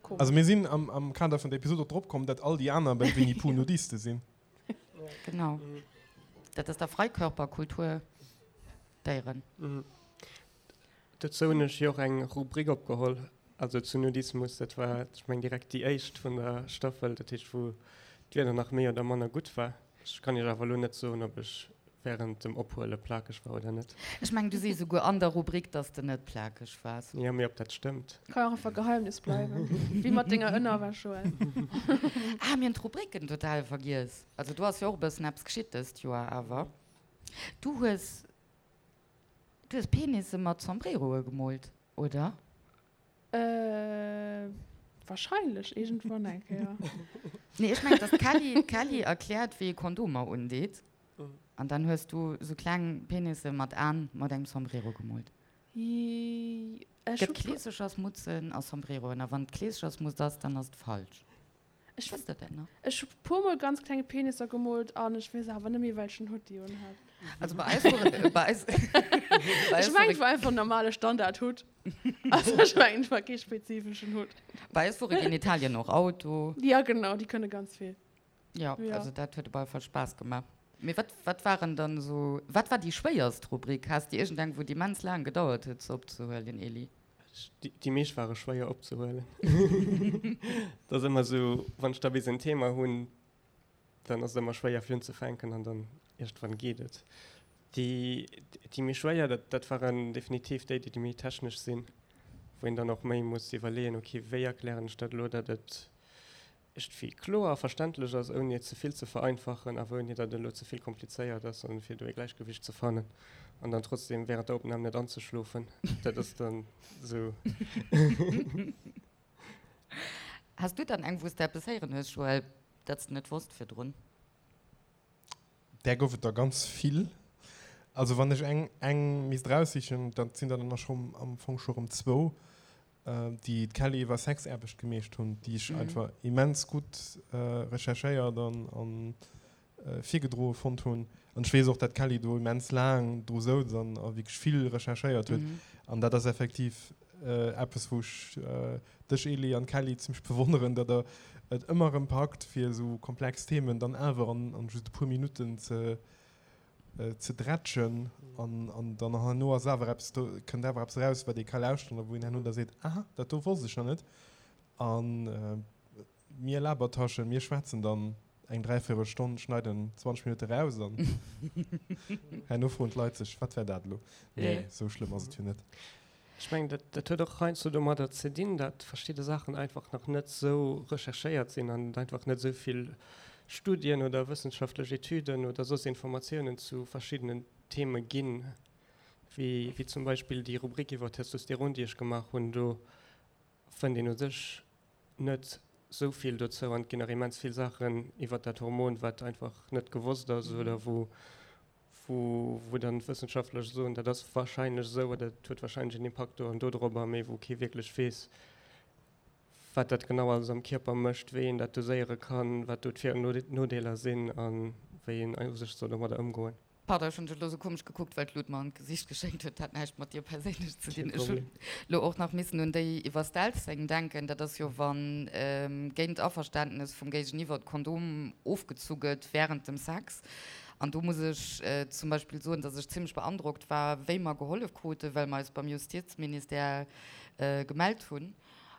komesch. Also mir sinn am, am Kader vun der Episod och drop komm, dat all déi aner beim Winnie Pooh Nudiste sinn. Genau. Dat ass der Freikörperkultur Déieren. Dozou hunn ech jo och eng Rubrik opgeholl, also zu Nudismus. Dat war, ech mengen, direkt déi éischt vun der Staffel, dat heescht, wou d'Wieder nach méi oder manner gutt war. Ech kann Iech awer elo net soen, ob ech wärend dem Ophuele plakeg war oder net. Ech mengen, du sees esouguer an der Rubrik, dass de net plakeg waars. Jo, mee ob dat stëmmt? Ka jo och einfach Geheimnis bleiwen, wéi mat denger Ënnerwäsch, Joël. Ah, mir hunn d'Rubriken total vergiess. Also do ass jo och e bëssen eppes geschitt dëst Joer awer. Du hues Du hues Penisse mat Sombreroe gemoolt, oder? Äh, wahrscheinlech iergendwann eng Kéier. Nee, ech mengen, dass d'Kelly, d'Kelly erkläert, wéi ee Kondomer undeet. An dann hues du sou kleng Penisse mat Aen mat engem Sombrero gemoolt. Ech Gëtt Kleesechersmutzen a Sombreroen. A wann et Kleesechersmutz ass, dann ass et falsch. Ech Wësst der dat nach? Ech hu puer mol ganz kleng Penisser gemoolt an ech weess awer net méi welchen Hutt déi un hat. Also bei eis wor bei eis bei eis Ech mengen et war einfach en normale Standard Hutt. Also ech mengen et war kee spezifeschen Hutt. Bei eis wore Genitalien och Auto. Ja genau, déi kënne ganz vill. Ja, ja. Also dat huet op alle Fall Spaass gemaach. Mee wat wat waren dann esou wat war déi schwéierst Rubrik? Has de iergendeng wou et immens laang gedauert huet se opzehuelen, Elie? Déi meescht ware schwéier opzehuelen. Dat ass ëmmer esou, wann ech da bis en Thema hunn, dann ass et ëmmer schwéier fir unzefänken an dann iergendwann geet et. Déi, déi méi schwéier, dat, dat waren definitiv déi, déi méi technesch sinn, wou een dann och méi muss iwwerleeën, okay, wéi erklären ech dat elo, datt et iergendwéi kloer a verständlech ass, ouni et ze vill ze vereinfachen, awer ouni datt et elo ze vill komplizéiert ass, an fir do e Gläichgewicht ze fannen an dann trotzdem während der Opnam net anzeschlofen, dat ass dann esou. Has du dann eng, wou s de eppes héieren hues, Joël, dat s de net wosst virdrun? Där gouf et der ganz vill. Also wann ech eng, eng misst eraussichen, dat sinn der dann och am Fong scho rëm zwou. déi d'Kelly iwwer Sexaarbecht gemeescht hunn, déi ech einfach immens gutt recherchéiert an virgedroe fonnt hunn. An ech weess och, dat d'Kelly do immens laang dru souz an a wierklech vill recherchéiert huet. An dat ass effektiv eppes, wou ech dech, Elie, an d'Kelly zimmlech bewonneren, datt der et ëmmer erëm packt, fir esou komplex Themen dann awer an just e puer Minutten ze ze drätschen an an dann herno ass awer eppes do, kënnt awer eppes eraus, wat ee ka lauschteren a wou een herno da seet, aha, dat do wosst ech nach net. A mir Labertaschen, mir schwätzen dann eng dräivéierel Stonn, schneiden 20 Minutte raus an herno froen d'Leit sech, wat war dat elo? Nee, esou schlëmm ass et jo net. Ech mengen, dat, dat huet och heiansdo domadder ze dinn, datt verschidde Saachen einfach nach net esou recherchéiert sinn an et einfach net esou vill. Studien oder wëssenschaftlech Etüden oder soss Informatiounen zu verschiddenen Theme ginn, wéi wéi zum Beispill déi Rubrik iwwer Testosteron, déi ech gemaach hunn. Do fënnt een u sech net sou vill dozou an et ginn nach immens vill Saachen iwwer dat Hormon, wat einfach net gewosst ass oder wou wou wou dann d'Wëssenschaftler soen, dat ass wahrscheinlech esou oder dat huet wahrscheinlech en Impakt do an do dorobber, mee wou kee wierklech weess, wat dat genau alles am Kierper mécht, wéi een dat doséiere kann, wat do d'Vir an Nodeeler sinn a wéi een u sech soll domadder ëmgoen. Pardon, ech hunn dech elo sou komesch gekuckt, well d'Lut mer an d'Gesicht geschéngt huet. Dat hat näischt mat dir perséinlech ze dinn. Ech hunn elo och nach missen un déi iwwer Stealthing denken. Dat ass jo, wa géint Averständnes vum Géigeniwwer d'Kondom ofgezu gëtt wärend dem Sex. An do muss ech zum Beispill soen, dass ech zimmlech beandrockt war, wéi mer gehollef kruten, well mer eis beim Justizministère gemellt hunn.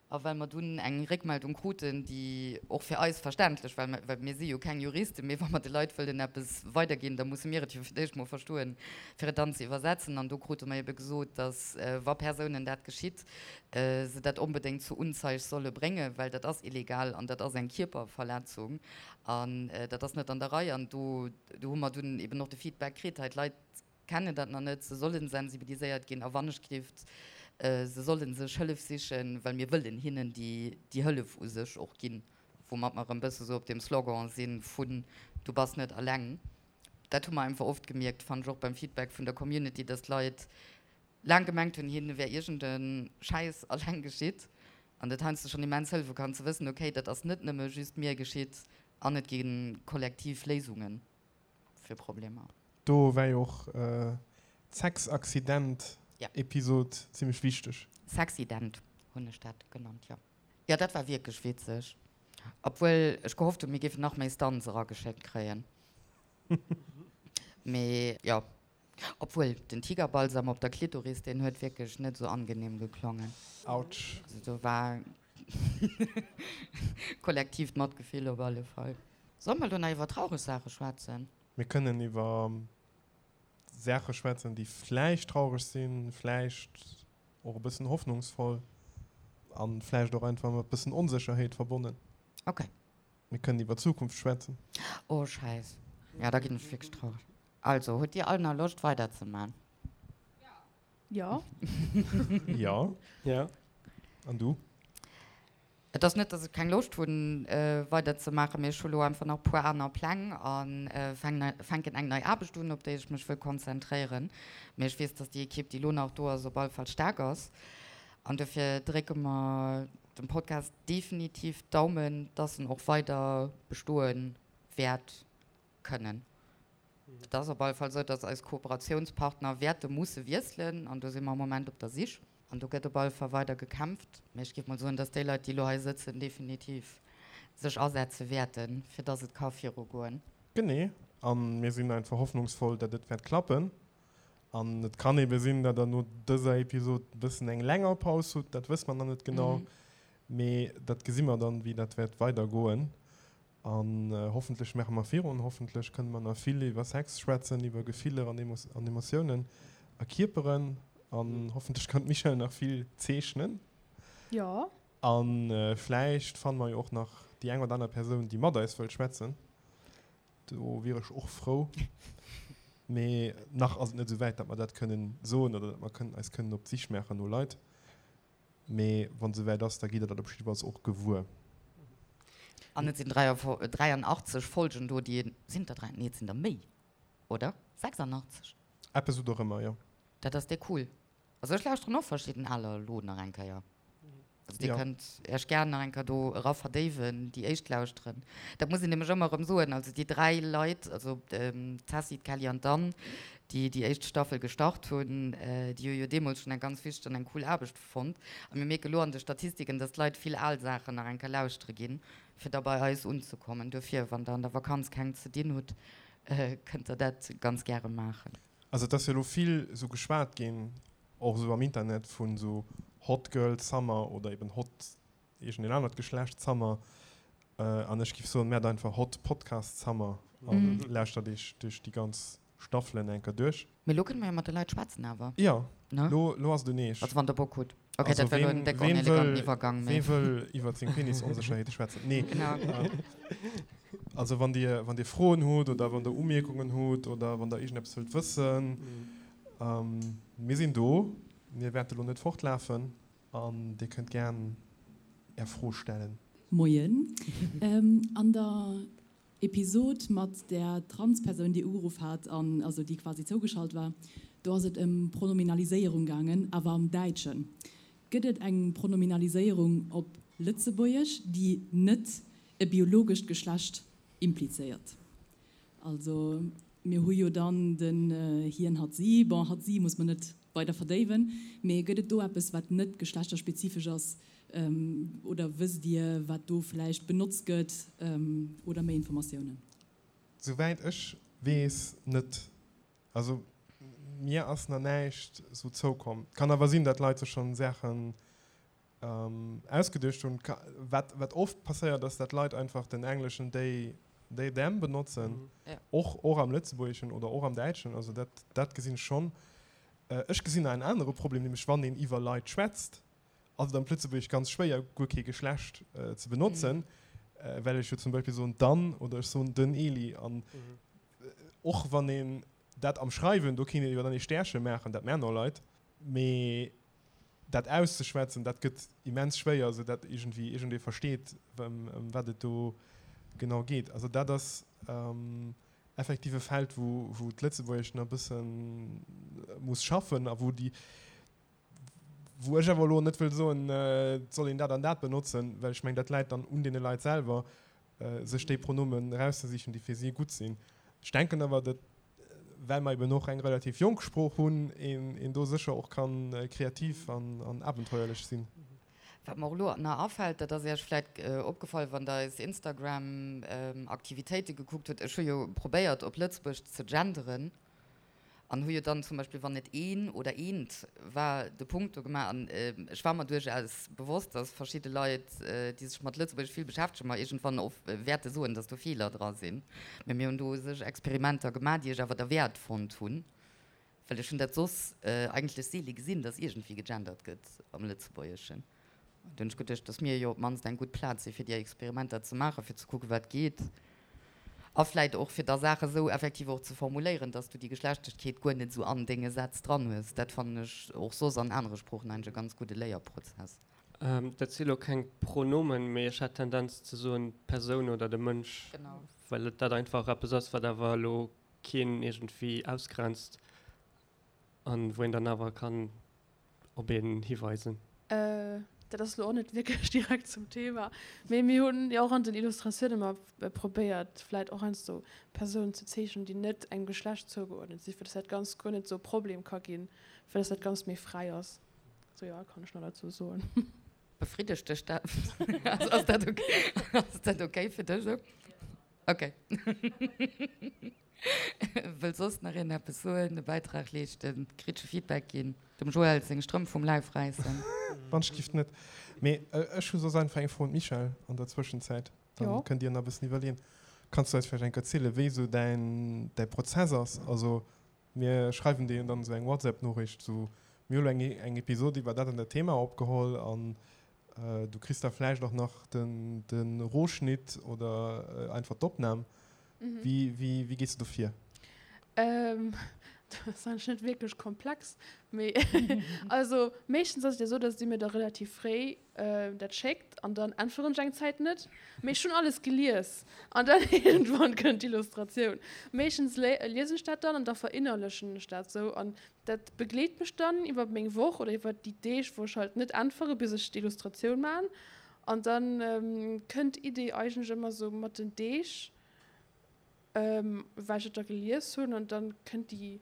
A well mer dunn eng Réckmeldung kruten, déi och fir eis verständlech war, well mir si jo keng Juristen, mee wa mer de Leit wëllen eppes weiderginn, da musse mir et jo fir d'éischt mol verstoen, fir et dann ze iwwersetzen. An do krute mer ebe gesot, datt, wa Persounen dat geschitt, se dat onbedéngt zur Unzeig solle bréngen, well dat ass illegal an dat ass eng Kierperverletzung an dat ass net an der Rei. An do hu mer dunn eben och de Feedback kritt, hei d'Leit kennen dat nach net, se sollen sensibiliséiert ginn a wannechgelift, se sollen sech Hëllef sichen, well mir wëllen hinnen déi déi Hëllef u sech och ginn, woumat mer erëm bësse sou op deem Slogan sinn vun du bass net alleng. Dat hu mer einfach oft gemierkt, fannen ech och beim Feedback vun der Community, dass d'Leit laang gemengt hunn, hinne wär iergend e Schäiss alleng geschitt an dat heiansdo schonn immens hëllefe kann ze wëssen, okay, dat ass net nëmme just mir geschitt an et gi kollektiv Léisungen. fir Problemer. Do war jo och d'Sexaccident-Episod zimmlech wichteg. Sexident hunn ech dat genannt, jo. Jo, dat war wierklech witzeg. Obwuel ech gehofft hunn, mir géifen nach méi Stunts erageschéckt kréien. Mee jo, obwuel den Tigerbalsam op der Klitoris, deen huet wierklech net esou angenehm geklongen. Autsch. Also do war Kollektiivt Matgefill op alle Fall. Solle mer elo nach iwwer traureg Saache schwätzen? Mir kënnen iwwer Saache schwätzen, déi vläicht traureg sinn, vläicht och e bëssen hoffnungsvoll a vläicht och einfach mat bëssen Onsécherheet verbonnen. Ok. Mir kënnen iwwer d'Zukunft schwätzen. Oh Schäiss. Ja, da ginn ech wierklech traureg. Also, hutt Dir all nach Loscht weiderzeman? Jo. Jo. Jo. An du? Et ass net, dass ech keng Loscht hunn weider ze maachen, mee ech hu lo einfach nach e puer aner Pläng a fänken eng nei Aarbecht un, op déi ech mech wëll konzentréieren. Mee ech weess, dass déi Ekipp, déi lo nach do ass, op alle Fall staark ass. An dofir drécke mer dem Podcast definitiv d'Daumen, dass en och weider bestoe wäert kënnen. Et ass op alle Fall esou, dass eis Kooperatiounspartner wäerte musse wiesselen an do si mer am Moment op der Sich. An do gëtt op alle Fall weider gekämpft. Mee ech géif mol soen, dass déi Leit, déi elo hei sëtzen, definitiv sech asetze wäerten, fir dass et ka virugoen. Genee. A mir sinn einfach hoffnungsvoll, datt et wäert klappen. An et kann ebe sinn, datt Der no dëser Episod e bëssen eng länger Paus hutt. Dat wësse mer nach net genau. Mee dat gesi mer dann, wéi dat wäert weidergoen. An hoffentlech maache mer virun, hoffentlech kënne mer nach vill iwwer Sex schwätzen, iwwer Gefiller an Emotiounen a Kierperen. An hoffentlech kann d'Michèle nach vill zeechnen. Jo. A vläicht fanne mer jo och nach déi eng oder aner Persoun, déi mat eis wëllt schwätzen. Do wier ech och frou. Mee nach ass et net esou wäit, datt mer dat kënnen soen oder datt mer kënnen eis kënnen op d'Sich maachen no Leit. Mee wann et esouwäit ass, da gitt der dat op jiddefalls och gewuer. An et sinn 83 Folgen do, déi een, sinn et der 3, nee et sinn der méi, oder? 86? Eppes esou dorëmmer, jo. Dat ass déi cool. Also ech lauschteren och verschidden aler elo nach eng Kéier. Also dir kënnt Iech gär nach eng Kéier do era verdéiwen, déi éischt lauschteren. Dat muss een nämlech ëmmer erëm soen, also déi 3 Leit, also d'Tessy, d'Kelly an d'Anne, déi déi éischt Staffel gestart hunn, déi hu jo deemools schonn eng ganz wichteg an eng cool Aarbecht fonnt. A mir mierke lo an de Statistiken, dass d'Leit vill al Saachen nach eng Kéier lauschtere ginn, fir da bei eis unzekommen. Dofir, wann der an der Vakanz keng ze dinn hutt, kënnt der dat ganz gäre maachen. Also et ass jo elo vill esou geschwat ginn, och esou am Internet, vun esou Hot Girl Summer oder eben Hot iergendeen anert Geschlecht Summer. An ech giff soen, maacht einfach Hot Podcast Summer an lauschtert iech duerch déi ganz Staffelen eng Kéier duerch. Mee lo kënne mer jo mat de Leit schwätzen awer, Jo, ne? lo, lo ass et un eech. Also wann der Bock hutt. Ok, dat war lo en déck oneleganten Iwwergang, mee. Ween wëll iwwert seng Penisonsécherheete schwätzen? Nee. Genau. Also wann Dir, wann Dir Froen hutt oder wann Der Umierkungen hutt oder wann Der iergendeppes wëllt wëssen, mir sinn do. Mir wäerte lo net fortlafen an Dir kënnt gären Är Fro stellen. Moien. An der Episod mat där Transpersoun, déi ugeruff hat an also déi quasi zougeschalt war, do ass et ëm Pronominaliséierung gaangen, awer am Däitschen. Gëtt et eng Pronominaliséierung op Lëtzebuergesch, déi net e biologescht Geschlecht implizéiert? Also mir hu jo dann den hien, hatt, si. Bon, hatt, si muss mer net weider verdéiwen, mee gëtt et do eppes, wat net geschlechterspezifesch ass? Oder wësst Dir, wat do vläicht benotzt gëtt oder méi Informatiounen? Souwäit ech weess net. Also mir ass na näischt sou zoukomm. Kann awer sinn, dat Leit sech schonn Saachen ausgeduecht hunn. Wat wat oft passéiert ass, dat Leit einfach den engleschen they, they, them benotzen, och och am Lëtzebuergeschen oder och am Däitschen. Also dat dat gesinn ech schonn. Ech gesinn nach en anere Problem, nämlech wann een iwwer Leit schwätzt, ass et am Lëtzebuergesch ganz schwéier guer kee Geschlecht ze benotzen, well ech jo zum Beispill soen d'Anne oder ech soen den Eli an och wann een dat am Schreiwen, do kéint een jo dann ee Stärche maachen, dat maachen och Leit, mee dat auszeschwätzen, dat gëtt immens schwéier, sou dat iergendwéi iergendee versteet, ëm wat et do genau geet. Also dat ass effektiv e Feld, wou wou d'Lëtzebuergescht nach e bësse muss schaffen a wou déi, wou ech awer elo net wëll soen, et soll een dat an dat benotzen, well ech mengen, dat läit dann un deene Leit selwer, sech déi Pronomen erauszesichen, déi fir si gutt sinn. Ech denken awer, datt, well mer eben och eng relativ jonk Sprooch hunn, een do sécher och ka kreativ an abenteuerlech sinn. Wat mer och elo nach afält, dat ass Iech vläit opgefall, wann Der eis Instagram-Aktivitéite gekuckt hutt, ech hu jo probéiert, op Lëtzebuerg ze genderen, An hu jo dann zum Beispill, wann et een oder eent war, de Punkt do gemaach. An ech war mer duerchaus bewosst, dass verschidde Leit, déi sech mat Lëtzebuergesch vill beschäftegen, mer iergendwann och wäerte soen, dass do Feeler dra sinn. Mä mir hunn do u sech Experimenter gemaach, déi ech awer derwäert fonnt hunn, well ech hunn dat soss eigentlech seele gesinn, dass iergendwéi gegendert gëtt am Lëtzebuergeschen. Do hunn ech geduecht, dass mir jo op d'mannst eng gutt Plaz si fir déi Experimenter ze maachen, fir ze kucken, wat geet. A vläit och, fir da Saache sou effektiv och ze formuléieren, dass du déi Geschlechtegkeet guer net sou an denge Sätz dran hues. Dat fannen ech och soss an anere Sproochen eigentlech e ganz gudde Léierprozess. Dat si lo keng Pronomen, mee ech hätt d'Tendenz ze soen d'Persoun oder de Mënsch, well et dat einfach eppes ass, wat awer elo keen iergendwéi ausgrenzt an wou een dann awer kann op een hiweisen. Dat ass elo och net wierklech direkt zum Thema, mee mir hunn jo och an den Illustratioune ëmmer probéiert, vläit och heiansdo Persounen ze zeechnen, déi net engem Geschlecht zougeuerdnet sinn, fir dass dat Ganzt guer net esou e Problem ka ginn, fir dass dat Ganzt méi fräi ass. Sou, jo, kann ech nach derzou soen. Befriddegt dech dat? Ass dat ok? Ass dat ok fir dech esou? Ok. Wëll soss nach een eppes soen, e Bäitrag leeschten, kritesche Feedback ginn, dem Joël seng Strëmp vum Läif räissen? Wann ech giff net. Mee ech hu soss einfach eng Fro un d'Michèle an der Zwëschenzäit. Dann kënnt dir nach e bëssen iwwerleeën. Kanns du eis vläicht eng Kéier erzielen, wéi esou däin däi Prozess ass? Also mir schreiwen dir jo dann esou eng WhatsApp-Noriicht, esou, mir hu lo eng eng Episod iwwer dat an dat Thema opgeholl an Du kriss da vläicht och nach den de Rohschnitt oder einfach d'Opnam. Wéi wéi wéi gees du do vir? Dat ass eigentlech net wierklech komplex, mee also meeschtens ass et jo esou, datt Dir mir da relativ fréi dat schéckt an dann äntweren ech eng Zäit net, mee ech hunn alles gelies an dann iergendwann kënnt d'Illustratioun. Meeschtens liesen ech dat dann an da verinnerlechen ech dat esou an Dat begleet mech dann iwwer meng Woch oder iwwer déi Deeg, wou ech halt net äntwere bis ech d'Illustratioun man. An dann kënnt d'Idee eigentlech ëmmer sou mat den Deeg, well ech et da gelies hunn an dann kënnt déi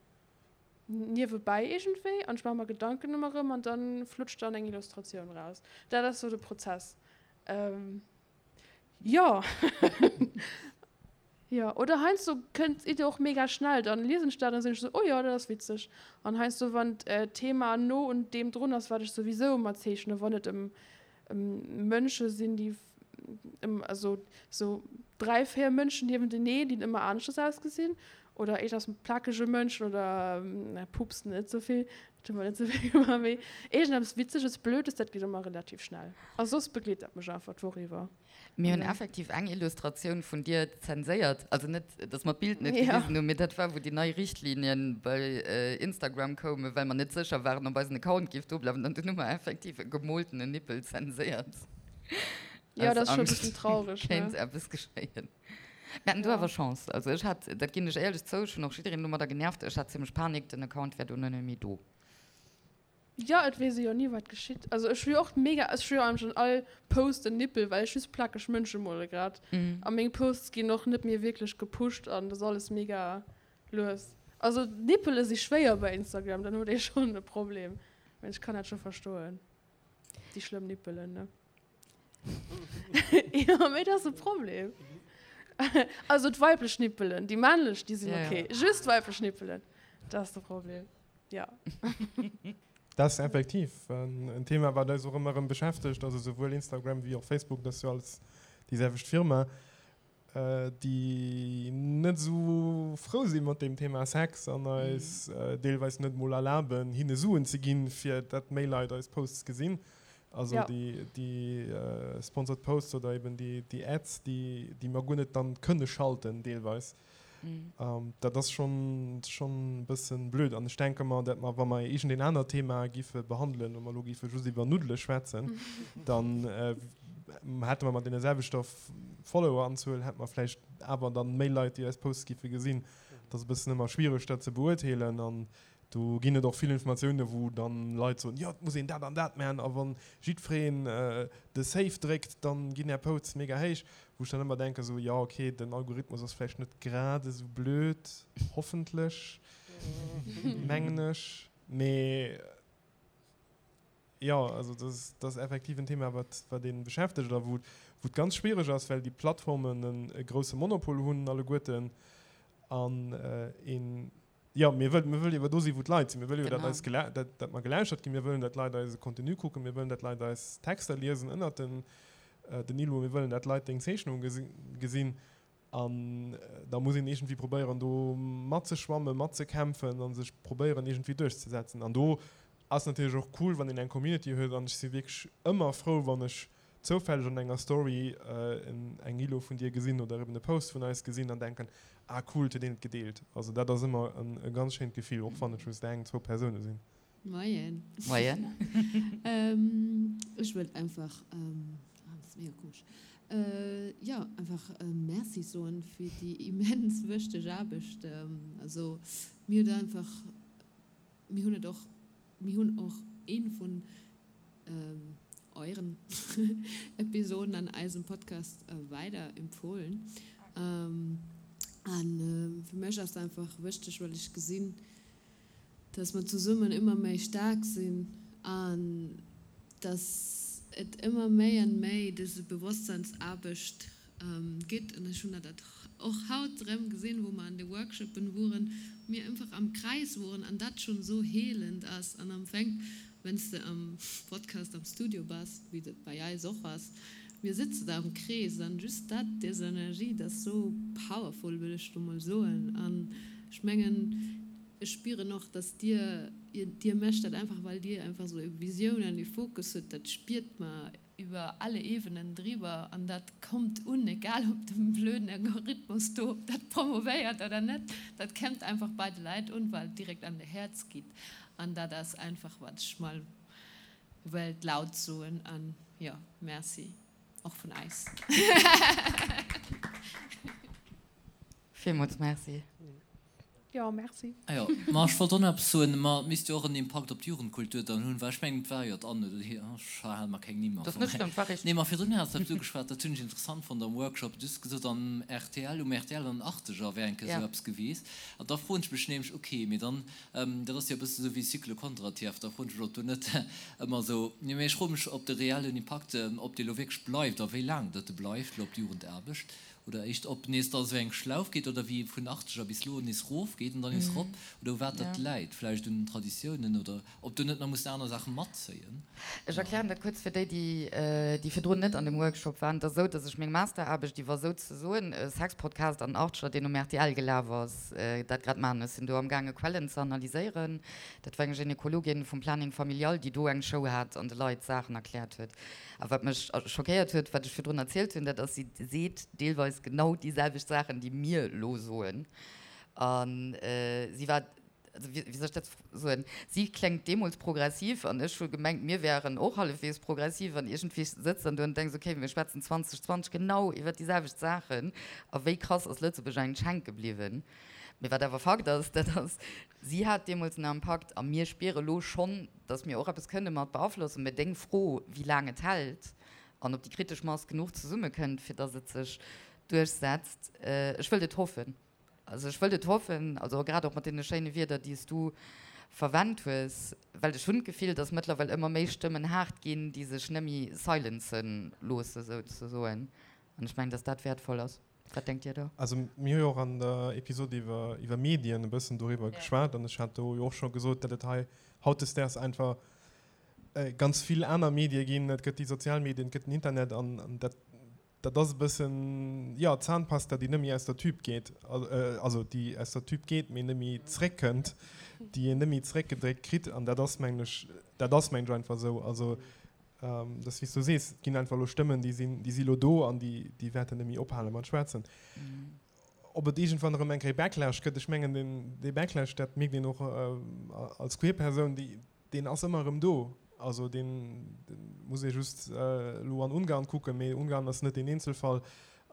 niewebäi iergendwéi an ech maache mer Gedanken ëmmer erëm an dann flutscht dann eng Illustratioun raus. Dat ass sou de Prozess. Jo. Jo, oder heiansdo kënnt d'Idee och mega schnell, dann liesen ech dat an sinn ech sou, oh jo, dat ass witzeg. An heiansdo wann d'Thema no un deem drun ass, wat ech souwisou ëmmer zeechnen, wann et ëm Mënsche sinn, déi ëm, also sou 3, 4 Mënschen niewenteneen, déi ëmmer aneschters ausgesinn. Oder iergendeppes mat plakege Mënschen oder pupsen net esou vill, dat hu mer net esou vill gemaach, mee iergendeppes Witzeges, Blödes, dat geet ëmmer relativ schnell. A soss begleet dat mech einfach d'Woch iwwer. Mir hunn effektiv eng Illustratioun vun dir zenséiert, also net, dass mer d'Bild net gewisen hunn, mee dat war, wou déi nei Richtlinien bei Instagram koumen, well mer net sécher waren, ob eisen Account géif do bleiwen. An dunn hu mer effektiv e gemoltenen Nippel zenséiert. Jo, dat ass scho e bëssen traureg, ne? Kéint eppes geschéien. Mir haten do awer Chance. Also ech hat, dat ginn ech éierlech zou, ech hunn och jiddereen domadder genervt, ech hat zimmlech Panik, den Account wär dono net méi do. Jo, et weess ee jo ni wat geschitt. Also ech hu jo och mega, ech hu jo eigentlech an all Post en Nippel, well ech just plakeg Mënsche mole grad. A meng Posts ginn och net méi wierklech gepusht an dat ass alles mega lues. Also Nippele si schwéier bei Instagram, dann huet ee schonn e Problem. Mee ech kann dat scho verstoen, déi schlëmm Nippelen, ne. Jo, mee dat ass e Problem. Also d'weiblech Nippelen, déi männlech, déi sinn ok. Just d'weiblech Nippelen, dat ass de Problem, jo. Dat ass effektiv en Thema, wat eis och ëmmer erëm beschäftegt. Also souwuel Instagram wéi och Facebook, dat ass jo alles déi selwecht Firma. déi net esou frou si mat deem Thema Sex an eis deelweis net mol erlaben, hinne Suen ze ginn, fir dat méi Leit eis Posts gesinn. Also déi sponsored Posts oder eben déi Ads, déi mer guer net dann kënne schalten deelweis. Dat ass schonn e bëssen blöd. An ech denke mer, dat mer, wa mer iergendeen anert Thema giffe behandelen, wa mer elo giffe just iwwer Nuddele schwätzen, dann hätte mer mat deene selwechter Followeranzuel hätte mer vläicht awer dann méi Leit, déi eis Posts giffe gesinn. Et ass e bëssen ëmmer schwiereg, dat ze beurteelen. An do ginn et och vill Informatiounen, wou dann Leit soen, jo, et muss een dat an dat maachen a wa jiddwereen de Save dréckt, dann ginn är Posts mega héich. Wou ech dann ëmmer denken, esou, jo, okay, den Algorithmus ass vläicht net grad esou blöd, hoffentlech, mengen ech, mee jo, also dat ass effektiv en Thema, wat, wat ee beschäftegt a wou, wou et ganz schwiereg ass, well déi Plattformen en e grousse Monopol hunn alleguerten an een, Jo, mir wëllen, mir wëllen jo do sinn, wou d'Leit sinn. Mir wëllen jo, datt eis gela-, datt, datt mer gelauschtert ginn. Mir wëllen, datt d'Leit eise Contenu kucken. Mir wëllen, datt d'Leit eis Texter liesen ënnert den, den Illo. Mir wëllen, datt d'Leit deng Zeechnung gesi, gesinn. An da muss een iergendwéi probéieren, do matzeschwammen, matzekämpfen a sech probéieren, iergendwéi duerchzesetzen. An do ass natierlech och cool, wann een eng Community huet. An ech si wierklech ëmmer frou, wann ech zoufälleg an enger Story eng Illo vun dir gesinn oder eben e Post vun eis gesinn an denken, ah cool, et huet een et gedeelt. Also dat ass ëmmer e ganz schéint Gefill, och wann et just eng, zwou Persoune sinn. Moien. Moien. Ech wëllt einfach, ah dat ass mega komesch, jo einfach Merci soen fir déi immens wëchteg Aarbecht. Also mir huet einfach, mir hunn et och, mir hunn och ee vun euren Episoden an eisem Podcast weider empfohlen. An fir mech ass einfach wëchteg, well ech gesinn, dass mer zesummen ëmmer méi staark sinn an dass et ëmmer méi an méi dëse Bewosstseinsaarbecht gitt. An ech hunn dat och haut erëm gesinn, wou mer an de Workshopen woren, mir einfach am Kreis woren an dat schonn esou heelend ass. An am Fänk, wenn s de am Podcast am Studio bass, wéi dat bei eis och ass, mir sëtze da am Krees an just dat, des Energie, dat ass esou powerful, wëll ech do mol soen. An ech mengen, ech spieren och, dass dir, dir mécht dat einfach, well dir einfach esou e Visioun an e Fokus hutt, dat spiert mer iwwer alle Ebenen driwwer an dat kommt un, egal ob de blöden Algorithmus do dat promovéiert oder net, dat kennt einfach bei de Leit un, well et direkt an de Häerz geet an dat ass einfach wat ech mol wëllt laut soen an jo, Merci och vun eis. Villmools Merci. Jo, merci. Ah jo, ma ech wollt och nach eppes soen, ma et misst jo och en Impakt op d'Jugendkultur dann hunn, well ech mengen et war jo d'Anne, ech hale mer keng Nimm am Fong. Nee, ma virdrun has de eppes ugeschwat, dat hunn ech interessant fonnt am Workshop, du hues gesot am rtl, um rtl an den Achteger wär eng Kéier esou eppes gewiesst. An da froen ech mech nämlech, ok, mee dann, dat ass jo e bësse sou wéi Cycle Kondratiev, da froen ech mech, ob do net ëmmer esou, nee, mee ech froe mech, ob de reellen Impakt, ob dee lo wierklech bleift a wéi laang datt e bleift lo op d'Jugendaarbecht. Oder éischt ob nees da esou eng Schlauf geet oder wéi vun Achteger bis lo nees rof geet an dann nees rop oder u wat dat läit, vläicht un den Traditiounen oder ob do net nach mussen aner Saache matzéien. Ech erklären dat kuerz fir déi, déi virdrun net an dem Workshop waren. Et ass esou, datt ech meng Masteraarbecht iwwer souzesoen e Sexpodcast an den Achteger, deen um rtl gelaf ass, dat grad maachen. Ech sinn do amgaange Quellen ze analyséieren. Dat war eng Gynekologin vum Planning Familial, déi do eng Show hat an de Leit Saachen erkläert huet. A wat mech schockéiert huet, wat ech virdrun erzielt hunn, dat ass, si seet deelweis genau déi selwecht Saachen, déi mir elo soen. A si war, also wéi soll ech dat soen, si kléngt deemools progressiv an ech hu gemengt, mir wären och hallefweegs progressiv. An iergendwéi sëtz dann do an denks, okay, mir schwätzen 2020 genau iwwer déi selwecht Saachen a wéi krass ass Lëtzebuerg eigentlech hänke bliwwen. Mee wat awer Fakt ass, dat ass, si hat deemools en Impakt a mir spiere lo schonn, datt mir och eppes kënne mat beaflossen. Mä deng Fro, wéi laang et hält an ob déi kritesch Mass genuch zesummekënnt, fir datt et sech duerchsetzt, ech wëllt et hoffen. Also ech wëllt et hoffen, also grad och mat deene schéine Wierder, déi s du verwennt hues, well ech hunn d'Gefill, datt mëttlerweil ëmmer méi Stëmmen haart ginn, déi sech nëmme silencen loosse souzesoen. An ech mengen, datt dat wäertvoll ass. Wat denkt Dir do? Also mir hu jo och an der Episod iwwer iwwer Medien e bëssen doriwwer geschwat an ech hat do jo och scho gesot, datt et hei hautdesdaags einfach ganz vill aner Medie ginn. Et gëtt déi sozial Medien, et gëtt den Internet an an dat dat ass e bëssen, jo, d'Zahnpasta, déi net méi aus der Tüb geet, also déi aus der Tüb geet, mee net méi zréckkënnt, déi een net méi zréckgedréckt kritt an dat ass, mengen ech, dat ass, mengen ech, einfach esou. Also Dat ass wéi s du sees, et ginn einfach elo Stëmmen, déi sinn, déi si elo do an déi, déi wäerten net méi ophale mat schwätzen. Ob et iergendwann erëm eng Kéier Backlash gëtt, ech mengen deen, dee Backlash, dat mierkt een och als queer Persoun, déi, deen ass ëmmer erëm do. Also deen, dee muss ee just elo an Ungarn kucken, mee Ungarn ass net deen Eenzelfall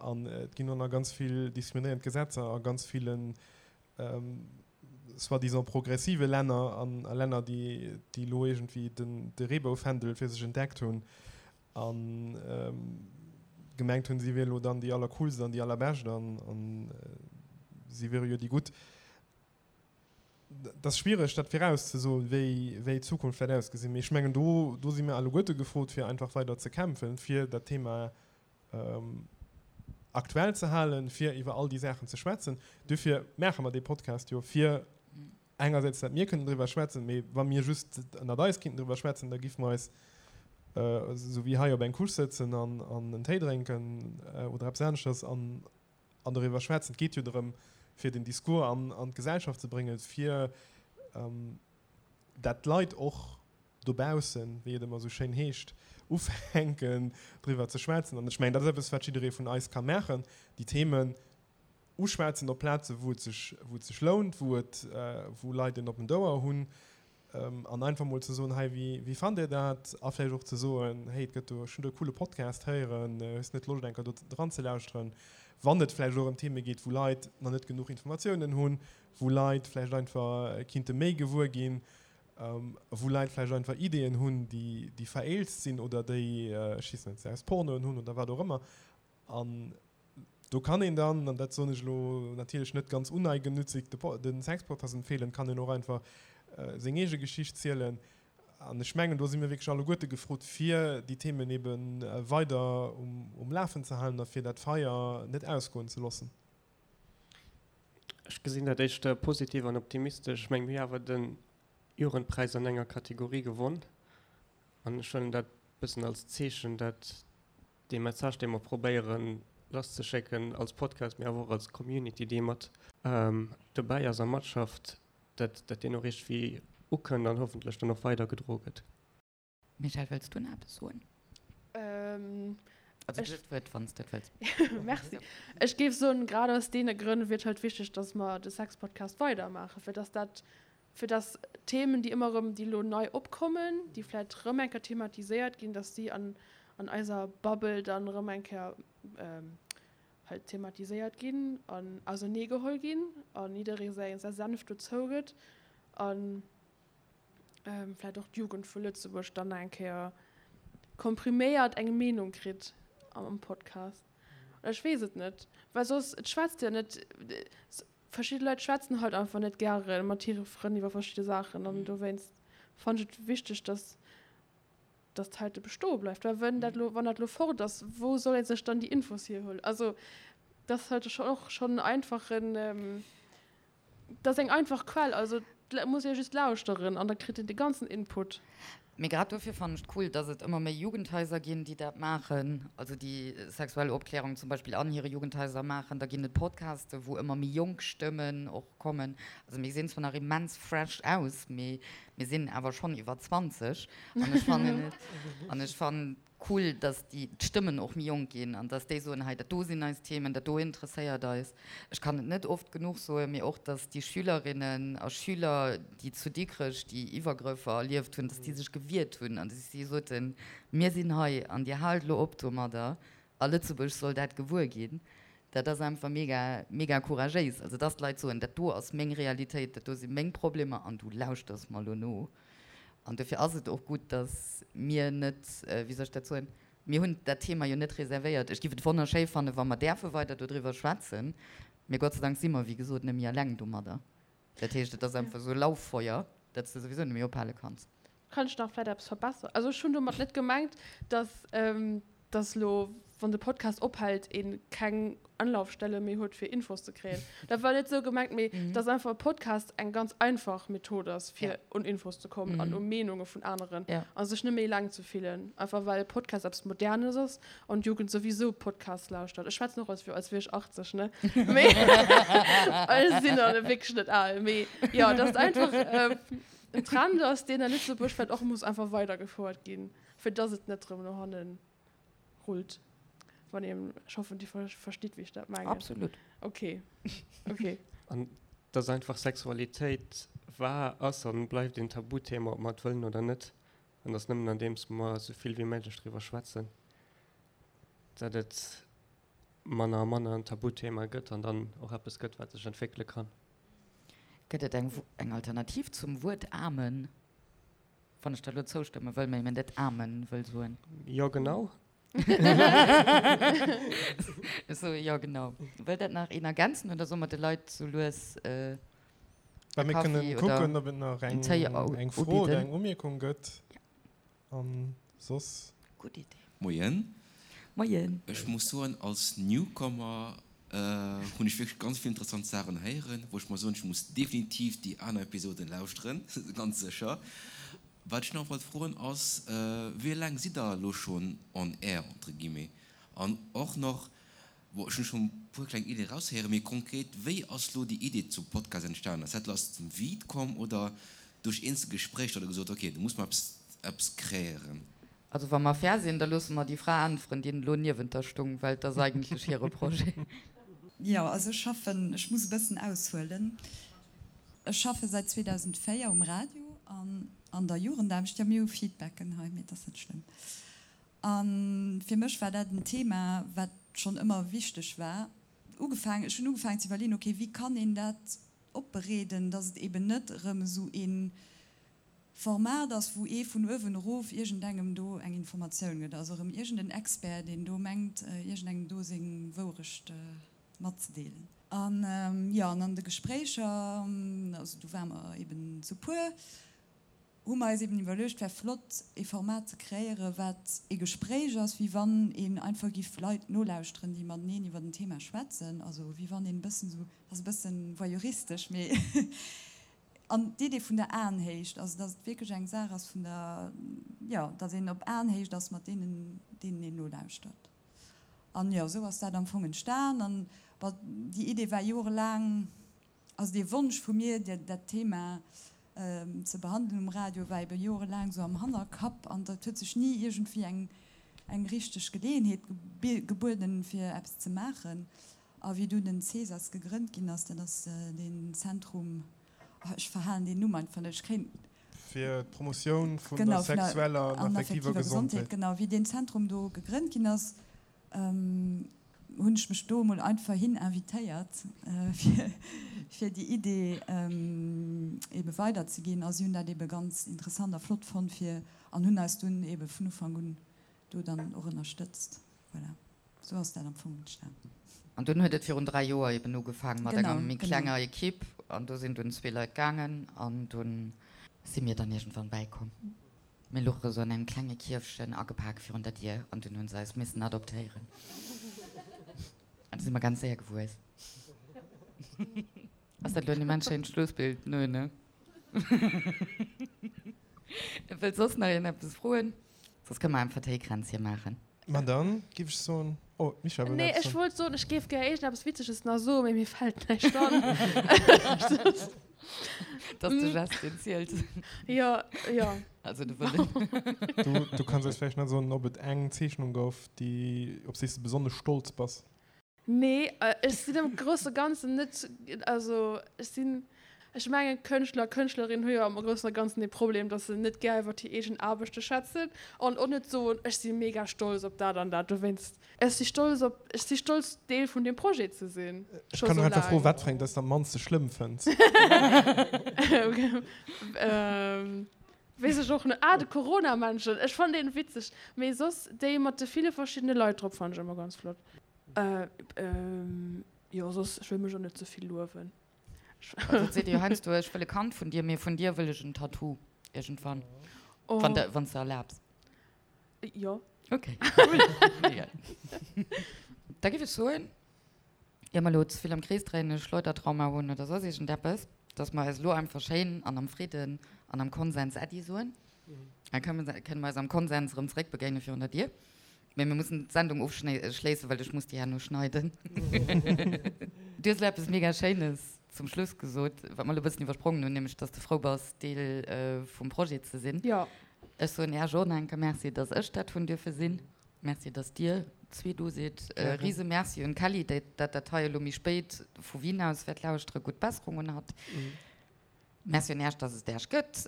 an et ginn och nach ganz vill diskriminéierend Gesetzer a ganz villen soi-disant progressive Länner an a Länner, déi déi elo iergendwéi den de Reeboufändel fir sech entdeckt hunn a gemengt hunn, si wier elo dann déi allercoolst an déi allerbescht an an si wiere jo déi Gutt. Et ass schwiereg, dat virauszesoen, wéi wéi d'Zukunft wäert ausgesinn. Mee ech mengen, do do si mir alleguerte gefrot, fir einfach weider ze kämpfen, fir dat Thema aktuell ze halen, fir iwwer all déi Saachen ze schwätzen. Duerfir maache mer dee Podcast jo, fir engersäits, datt mir kënnen driwwer schwätzen, mee wa mir just ënnert eis kinnten driwwer schwätzen, da giffe mer eis esou wéi hei op eng Couche sëtzen an en Téi drénken oder eppes aneschters an doriwwer schwätzen. Et geet jo drëm, fir den Discours an d'Gesellschaft ze bréngen, fir dat d'Leit och dobaussen, wéi et ëmmer esou schéin heescht, ufänken driwwer ze schwätzen. An ech mengen, dat ass eppes, wat jidderee vun eis ka maachen, déi Themen uschwätzen op Plaze wou et sech, wou et sech lount, wou et, wou Leit en oppent Ouer hunn, an einfach mol ze soen, hei, wéi, wéi fannt Dir dat? A vläicht och ze soen, hey, et gëtt do, ech hunn do e coole Podcast héieren, hues net Loscht eng Kéier do dran ze lauschteren? Wann et vläicht och ëm Theme geet, wou Leit nach net genuch Informatiounen hunn, wou Leit vläicht einfach kinnte méi gewuer ginn, wou Leit vläicht einfach Ideeën hunn, déi, déi vereelzt sinn oder déi, ech weess net, se aus Pornoen hunn oder wat och ëmmer. An do kann een dann, an dat soen ech elo natierlech net ganz uneigennützig, de, de Sexpodcast empfeelen, kann een och einfach seng eege Geschicht zielen. An ech mengen, do si mir wierklech alleguerte gefrot, fir déi Themen ebe weider um, um Lafen ze halen a fir dat Feier net ausgoen ze loossen. Ech gesinn dat éischter positiv an optimistesch. Ech mengen, mir hu awer de Jugendpräis an enger Kategorie gewonn an ech huelen dat e bëssen als Zeechen, dat dee Message, dee mer probéieren lasszeschécken als Podcast, mee awer och als Community, déi mat dobäi ass a matschafft, dat dat deen och iergendwéi ukënnt an hoffentlech dann och weidergedroe gëtt. Michèle, wëlls du nach eppes soen? Also du hues d'Wuert, wann s de et wëlls. Merci. Ech géif soen, grad aus deene Grënn wier et halt wichteg, dass mer de Sexpodcast weidermaachen, fir dass dat, fir dass Themen, déi ëmmer erëm, déi elo nei opkommen, déi vläicht erëm eng Kéier thematiséiert ginn, dass déi an, an eiser Bubble dann erëm eng Kéier halt thematiséiert ginn an auserneegeholl ginn a jidderee säi Senf dozou gëtt. An vläit och d'Jugend vu Lëtzebuerg dann nach eng Kéier kompriméiert eng Meenung kritt am Podcast. Oder ech weess et net, well soss, et schwätzt jo net, verschidde Leit schwätzen halt einfach net gäre mat hire Frënn iwwer verschidde Saachen an dowéinst fannen ech et wichteg, dass dass d'heite bestoe bleift. Well wenn dat lo, wann dat lo fort ass, wou soll ee sech dann déi Infos hierhuelen? Also. Dat ass halt och schonn en einfachen, dat ass eng einfach Quell. Also et muss ee just lauschteren an da kritt een de ganzen Input. Mee grad dofir fannen ech et cool, dass et ëmmer méi Jugendhaiser ginn, déi dat maachen, also déi sexuell Opklärung zum Beispill an hire Jugendhaiser maachen. Da ginn et Podcaste wou ëmmer méi jonk Stëmmen och kommen. Also mir gesinn zwar nach immens fresh aus, mee mir sinn awer schonn iwwer 20 an ech fannen et, an ech fannen Cool, dass déi d'Stëmmen och méi jonk ginn an dass déi soen, hei dat do sinn eis Themen, dat do interesséiert eis. Ech kann et net oft genuch soen, mee och dass déi Schülerinnen a Schüler, déi zu Dikrech déi Iwwergrëffer erlieft hunn, dass déi sech gewiert hunn an dass si soten, mir sinn hei an Dir haalt elo op domadder a Lëtzebuerg soll dat gewuer ginn. Dat ass einfach mega, mega couragéis. Also dass d'Leit soen, dat do ass meng Realitéit, dat do si meng Problemer an du lauschters mer elo no. An dofir ass et och gutt, datt mir net, wéi soll ech dat soen, mir hunn dat Thema jo net reservéiert. Ech géif et wonnerschéi fannen, wa mer däerfe weider dodriwwer schwätzen, mee Gott sei Dank si mer, wéi gesot, net méi eleng domadder. Dat heescht, et ass einfach esou e Lauffeuer, dat s de souwisou net méi ophale kanns. Kann ech nach vläit eppes verbesseren? Also ech hunn domat net gemengt, datt dass lo, wann de Podcast ophält, ee keng Anlaufstelle méi huet, fir Infos ze kréien. Dat war net esou gemengt, mee dass einfach e Podcast eng ganz einfach Method ass, fir un Infos ze kommen an u Meenunge vun aneren a sech net méi eleng ze fillen. Einfach well e Podcast eppes Modernes ass an d'Jugend souwisou Podcasts lauschtert. Ech schwätzen och als als wier ech 80, ne? Mee ech sinn dann wierklech net al. Mee jo, dass et einfach en Trend ass, deen a Lëtzebuerg vläicht och muss einfach weidergefouert ginn. Fir dass et net rëm no hannen rullt. Wann een, ech hoffen dir verstitt wéi ech dat mengen. Absolut. Ok, ok. An dass einfach Sexualitéit war, ass an bleift een Tabuthema, ob mer et wëllen oder net. An dass nëmmen andeems mer esou vill wéi méiglech driwwer schwätzen, dat et manner a manner en Tabuthema gëtt an dann och eppes gëtt, wat sech entwéckele kann. Gëtt et eng Alternativ zum Wuert Amen? Wann ech der elo zoustëmme wëll, mee net Amen wëll soen. Jo, genau. Ech soe jo, genau. Wëll dat nach een ergänzen oder solle mer de Leit sou lues e Kaffi oder en Téi ubidden? Mir kënnen kucken, ob et nach eng Fro oder eng Umierkung gëtt. An soss. Gutt Idee. Moien. Moien. Ech muss soen, als Newcomer hunn ech wierklech ganz vill interessant Saachen héieren, wou ech mer soen, ech muss definitiv déi aner Episoden lauschteren, ganz sécher. Wat ech nach wollt froen ass, wéi laang sidd der elo schonn on air, entre guillemets? An och nach, Bon, ech hunn schonn e puer kleng Iddien eraushéieren, mee konkret, wéi ass lo déi Idee zum Podcast entstanen? Ass dat lo aus dem Vide komm oder duerch eenzel Gespréicher, datt der gesot hutt, ok, do muss mer eppes, eppes kreéieren? Also wa mer fair sinn, da loosse mer déi Fra äntweren, déi elo niewent der stung, well et ass eigentlech hire Projet. Jo, also ech schaffen, ech muss e bëssen aushuelen, ech schaffe säit 2004 um Radio an an der Jugendaarbecht. Jo, mir hu Feedbacken hei, mee et ass net schlëmm. A fir mech war dat en Thema, wat schonn ëmmer wichteg war. Ugefaangen, ech hunn ugefaangen ze iwwerleeën, okay, wéi kann een dat opbereeden, datt et eben net erëm esou ee Format ass, wou ee vun uewen erof iergendengem do eng Informatioun gëtt, also erëm iergenden Expert, deen do mengt, iergendengem do seng Wourecht matzedeelen. An jo, an an de Gespréicher, also do ware mer eben zu puer, hu mer eis eben iwwerluecht, wär flott ee Format ze kreéieren, wat ee Gespréich ass, wéi wann een einfach giff Leit nolauschteren, déi mateneen iwwer en Thema schwätzen, also wéi wann een e bëssen esou, ass e bëssen voyeuristesch, mee an d'Idee vun der Aenhéicht, also dass et wierklech eng Saach ass vun der, jo, dass een op Aenhéicht ass mat deenen, deenen een nolauschtert. An jo, esou ass dat am Fong entstan an, bon, déi Idee war jorelaang, Also dee Wonsch vu mir, dat Thema ze behandelen um Radio, war ebe jorelaang esou am Hannerkapp an et huet sech ni iergendwéi eng eng richteg Geleeënheet gebueden, fir eppes ze maachen. A wéi dunn den CESAS gegrënnt ginn ass, dat ass deen Zentrum, oh ech verhalen deen Numm einfach net, ech kréien. Fir d'Promotioun vun der sexueller an affektiver Gesondheet. Genau, wéi deen Zentrum do gegrënnt ginn ass, hunn ech mech do emol einfach hin invitéiert, fir déi Idee ebe weiderzeginn. A si hunn dat ebe ganz interessant a flott fonnt fir an hunn eis dunn ebe vun Ufank un do dann och ënnerstëtzt. Voilà, esou ass dat am Fong entstan. An dunn huet et virun 3 Joer eben ugefaangen mat enger méi klenger Equipe an do sinn dunn zwee Leit gaangen an dunn si mir dann iergendwann bäikomm. Mir luche sou an engem klenge Kierfchen agepak virun der Dier an dunn hunn se eis missen adoptéieren. Do si mer ganz séier gewuess. Ass dat elo en immens schéint Schlussbild? Nö, ne? Wëllt soss nach een eppes froen? Soss kënne mer einfach Téikränzche maachen. Ma dann giff ech soen, oh, d'Michèle wëll Nee, eppes ech soen. wollt soen, ech géif gär iergendeppes Witzeges nach soen, mee mir fält näischt an. Dat ass de Gest, deen zielt. Jo, jo. Also de Wëllen. Du, du kanns eis vläicht nach soen, ob et eng Zeechnung gouf, déi, op déi s de besonnesch stolz bass. Nee, ech sinn am grousse Ganzen net, also ech sinn, ech mengen Kënschtler, Kënschtlerinnen hu jo am Groussen a Ganzen dee Problem, datt se net gär iwwer hir eegen Aarbechte schwätzen an och net soen, ech si mega stolz op dat an dat. Dowéinst, ech si stolz op, ech si stolz Deel vun deem Projet ze sinn, Ech scho kann sou och einfach froen, laang. wat fir eng dass de am mannste schlëmm fënns. Weess ech och net. Ah, de Corona-Männchen, ech fannen deen witzeg. Mee soss déi mat de ville verschiddene Leit drop fannen ech ëmmer ganz flott. Jo, soss, ech wëll mech och net ze vill luewen. Also et seet ee jo heiansdo, ech wëll e Kand vun dir, mee vun dir wëll ech en Tattoo iergendwann. Wann de, wann s de erlaabs. Jo. Ok, cool. Mega. Da géif ech soen, ier mer elo ze vill am Krees dréinen, e Schleudertrauma hunn oder soss iergendeppes, dass mer eis elo einfach schéin an am Fridden an am Konsens Äddi soen. Da kënne mer eis am Konsens erëm zeréckbegéine virun der Dier. Mee mir mussen d'Sendung ofschléissen, well ech muss déi herno schneiden. Du hues elo eppes mega Schéines zum Schluss gesot, wat mer elo e bëssen iwwersprongen hunn, nämlech dass de frou bass, Deel vum Projet ze sinn. Jo. Ech soen Iech och nach eng Kéier Merci, dass ech dat hunn dierfe sinn. Merci, dass dir zwee do sidd. E rise Merci un d'Kelly, déi dat dat hei elo méi spéit vu Wien aus wäert lauschteren. Gutt Besserung un hatt. Merci un Äech, dass et Äech gëtt.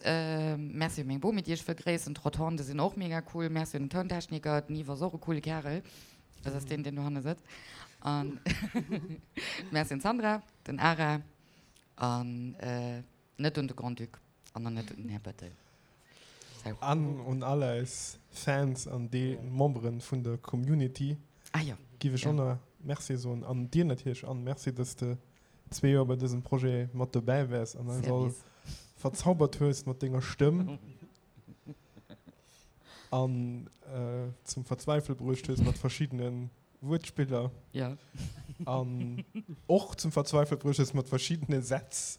Merci un meng Bomi, déi ech wëll gréissen. D'Rotonde sinn och mega cool. Merci un den Tountechniker, den Yves ass och e coole Kärel. Dat ass deen, deen dohanne sëtzt. An Merci un d'Sandra, den Ara an net un de Grand-Duc an och net un den Här Bettel. Sou. An un all eis Fans an déi Memberen vun der Community giff ech och nach Merci soen. An dir natierlech, Anne, Merci, dass de zwee Joer bei dësem Projet mat dobäi waars an eis all verzaubert hues mat denger Stëmm an zum Verzweifele bruecht hues mat verschiddene Wuertspiller an och zum Verzweifele bruecht hues mat verschiddene Sätz,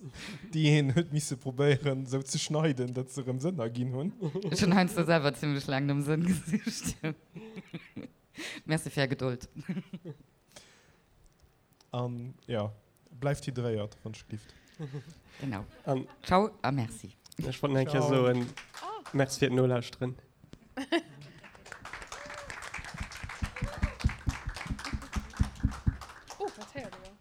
déi een huet misse probéieren esou ze schneiden, datt se erëm Sënn erginn hunn. Ech hunn heiansdo selwer zimmlech laang nom Sënn gesicht. Merci fir är Gedold. An jo, bleift hydréiert, wann ech gelift. Genau. An Ciao a Merci. Ech wollt nach eng Kéier soen, Merci fir d'Nolauschteren. Oh, dat héiert ee jo.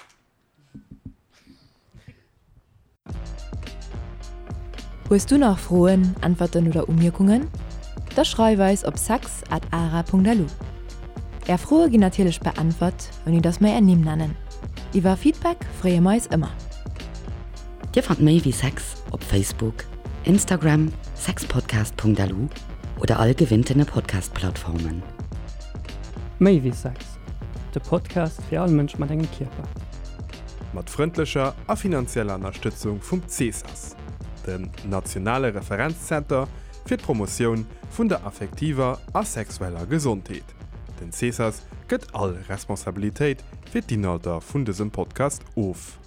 Hues du nach Froen, Äntwerten oder Umierkungen? Da schreif eis op sex at ara.lu. Är Froe ginn natierlech beäntwert, ouni dass mer är Nimm nennen. Iwwer Feedback freeë mer eis ëmmer. Dir fannt méi wéi Sex op Facebook, Instagram, sexpodcast.lu oder all gewinntene Podcast-Plattformen. Méi wéi Sex, de Podcast fir all Mënsch mat engem Kierper. Mat frëndlecher a finanzieller Ënnerstëtzung vum CESAS, dem nationale Referenzzenter fir d'Promotioun vun der affektiver a sexueller Gesondheet. Den CESAS gëtt all Responsabilitéit fir d'Inhalter vun dësem Podcast of.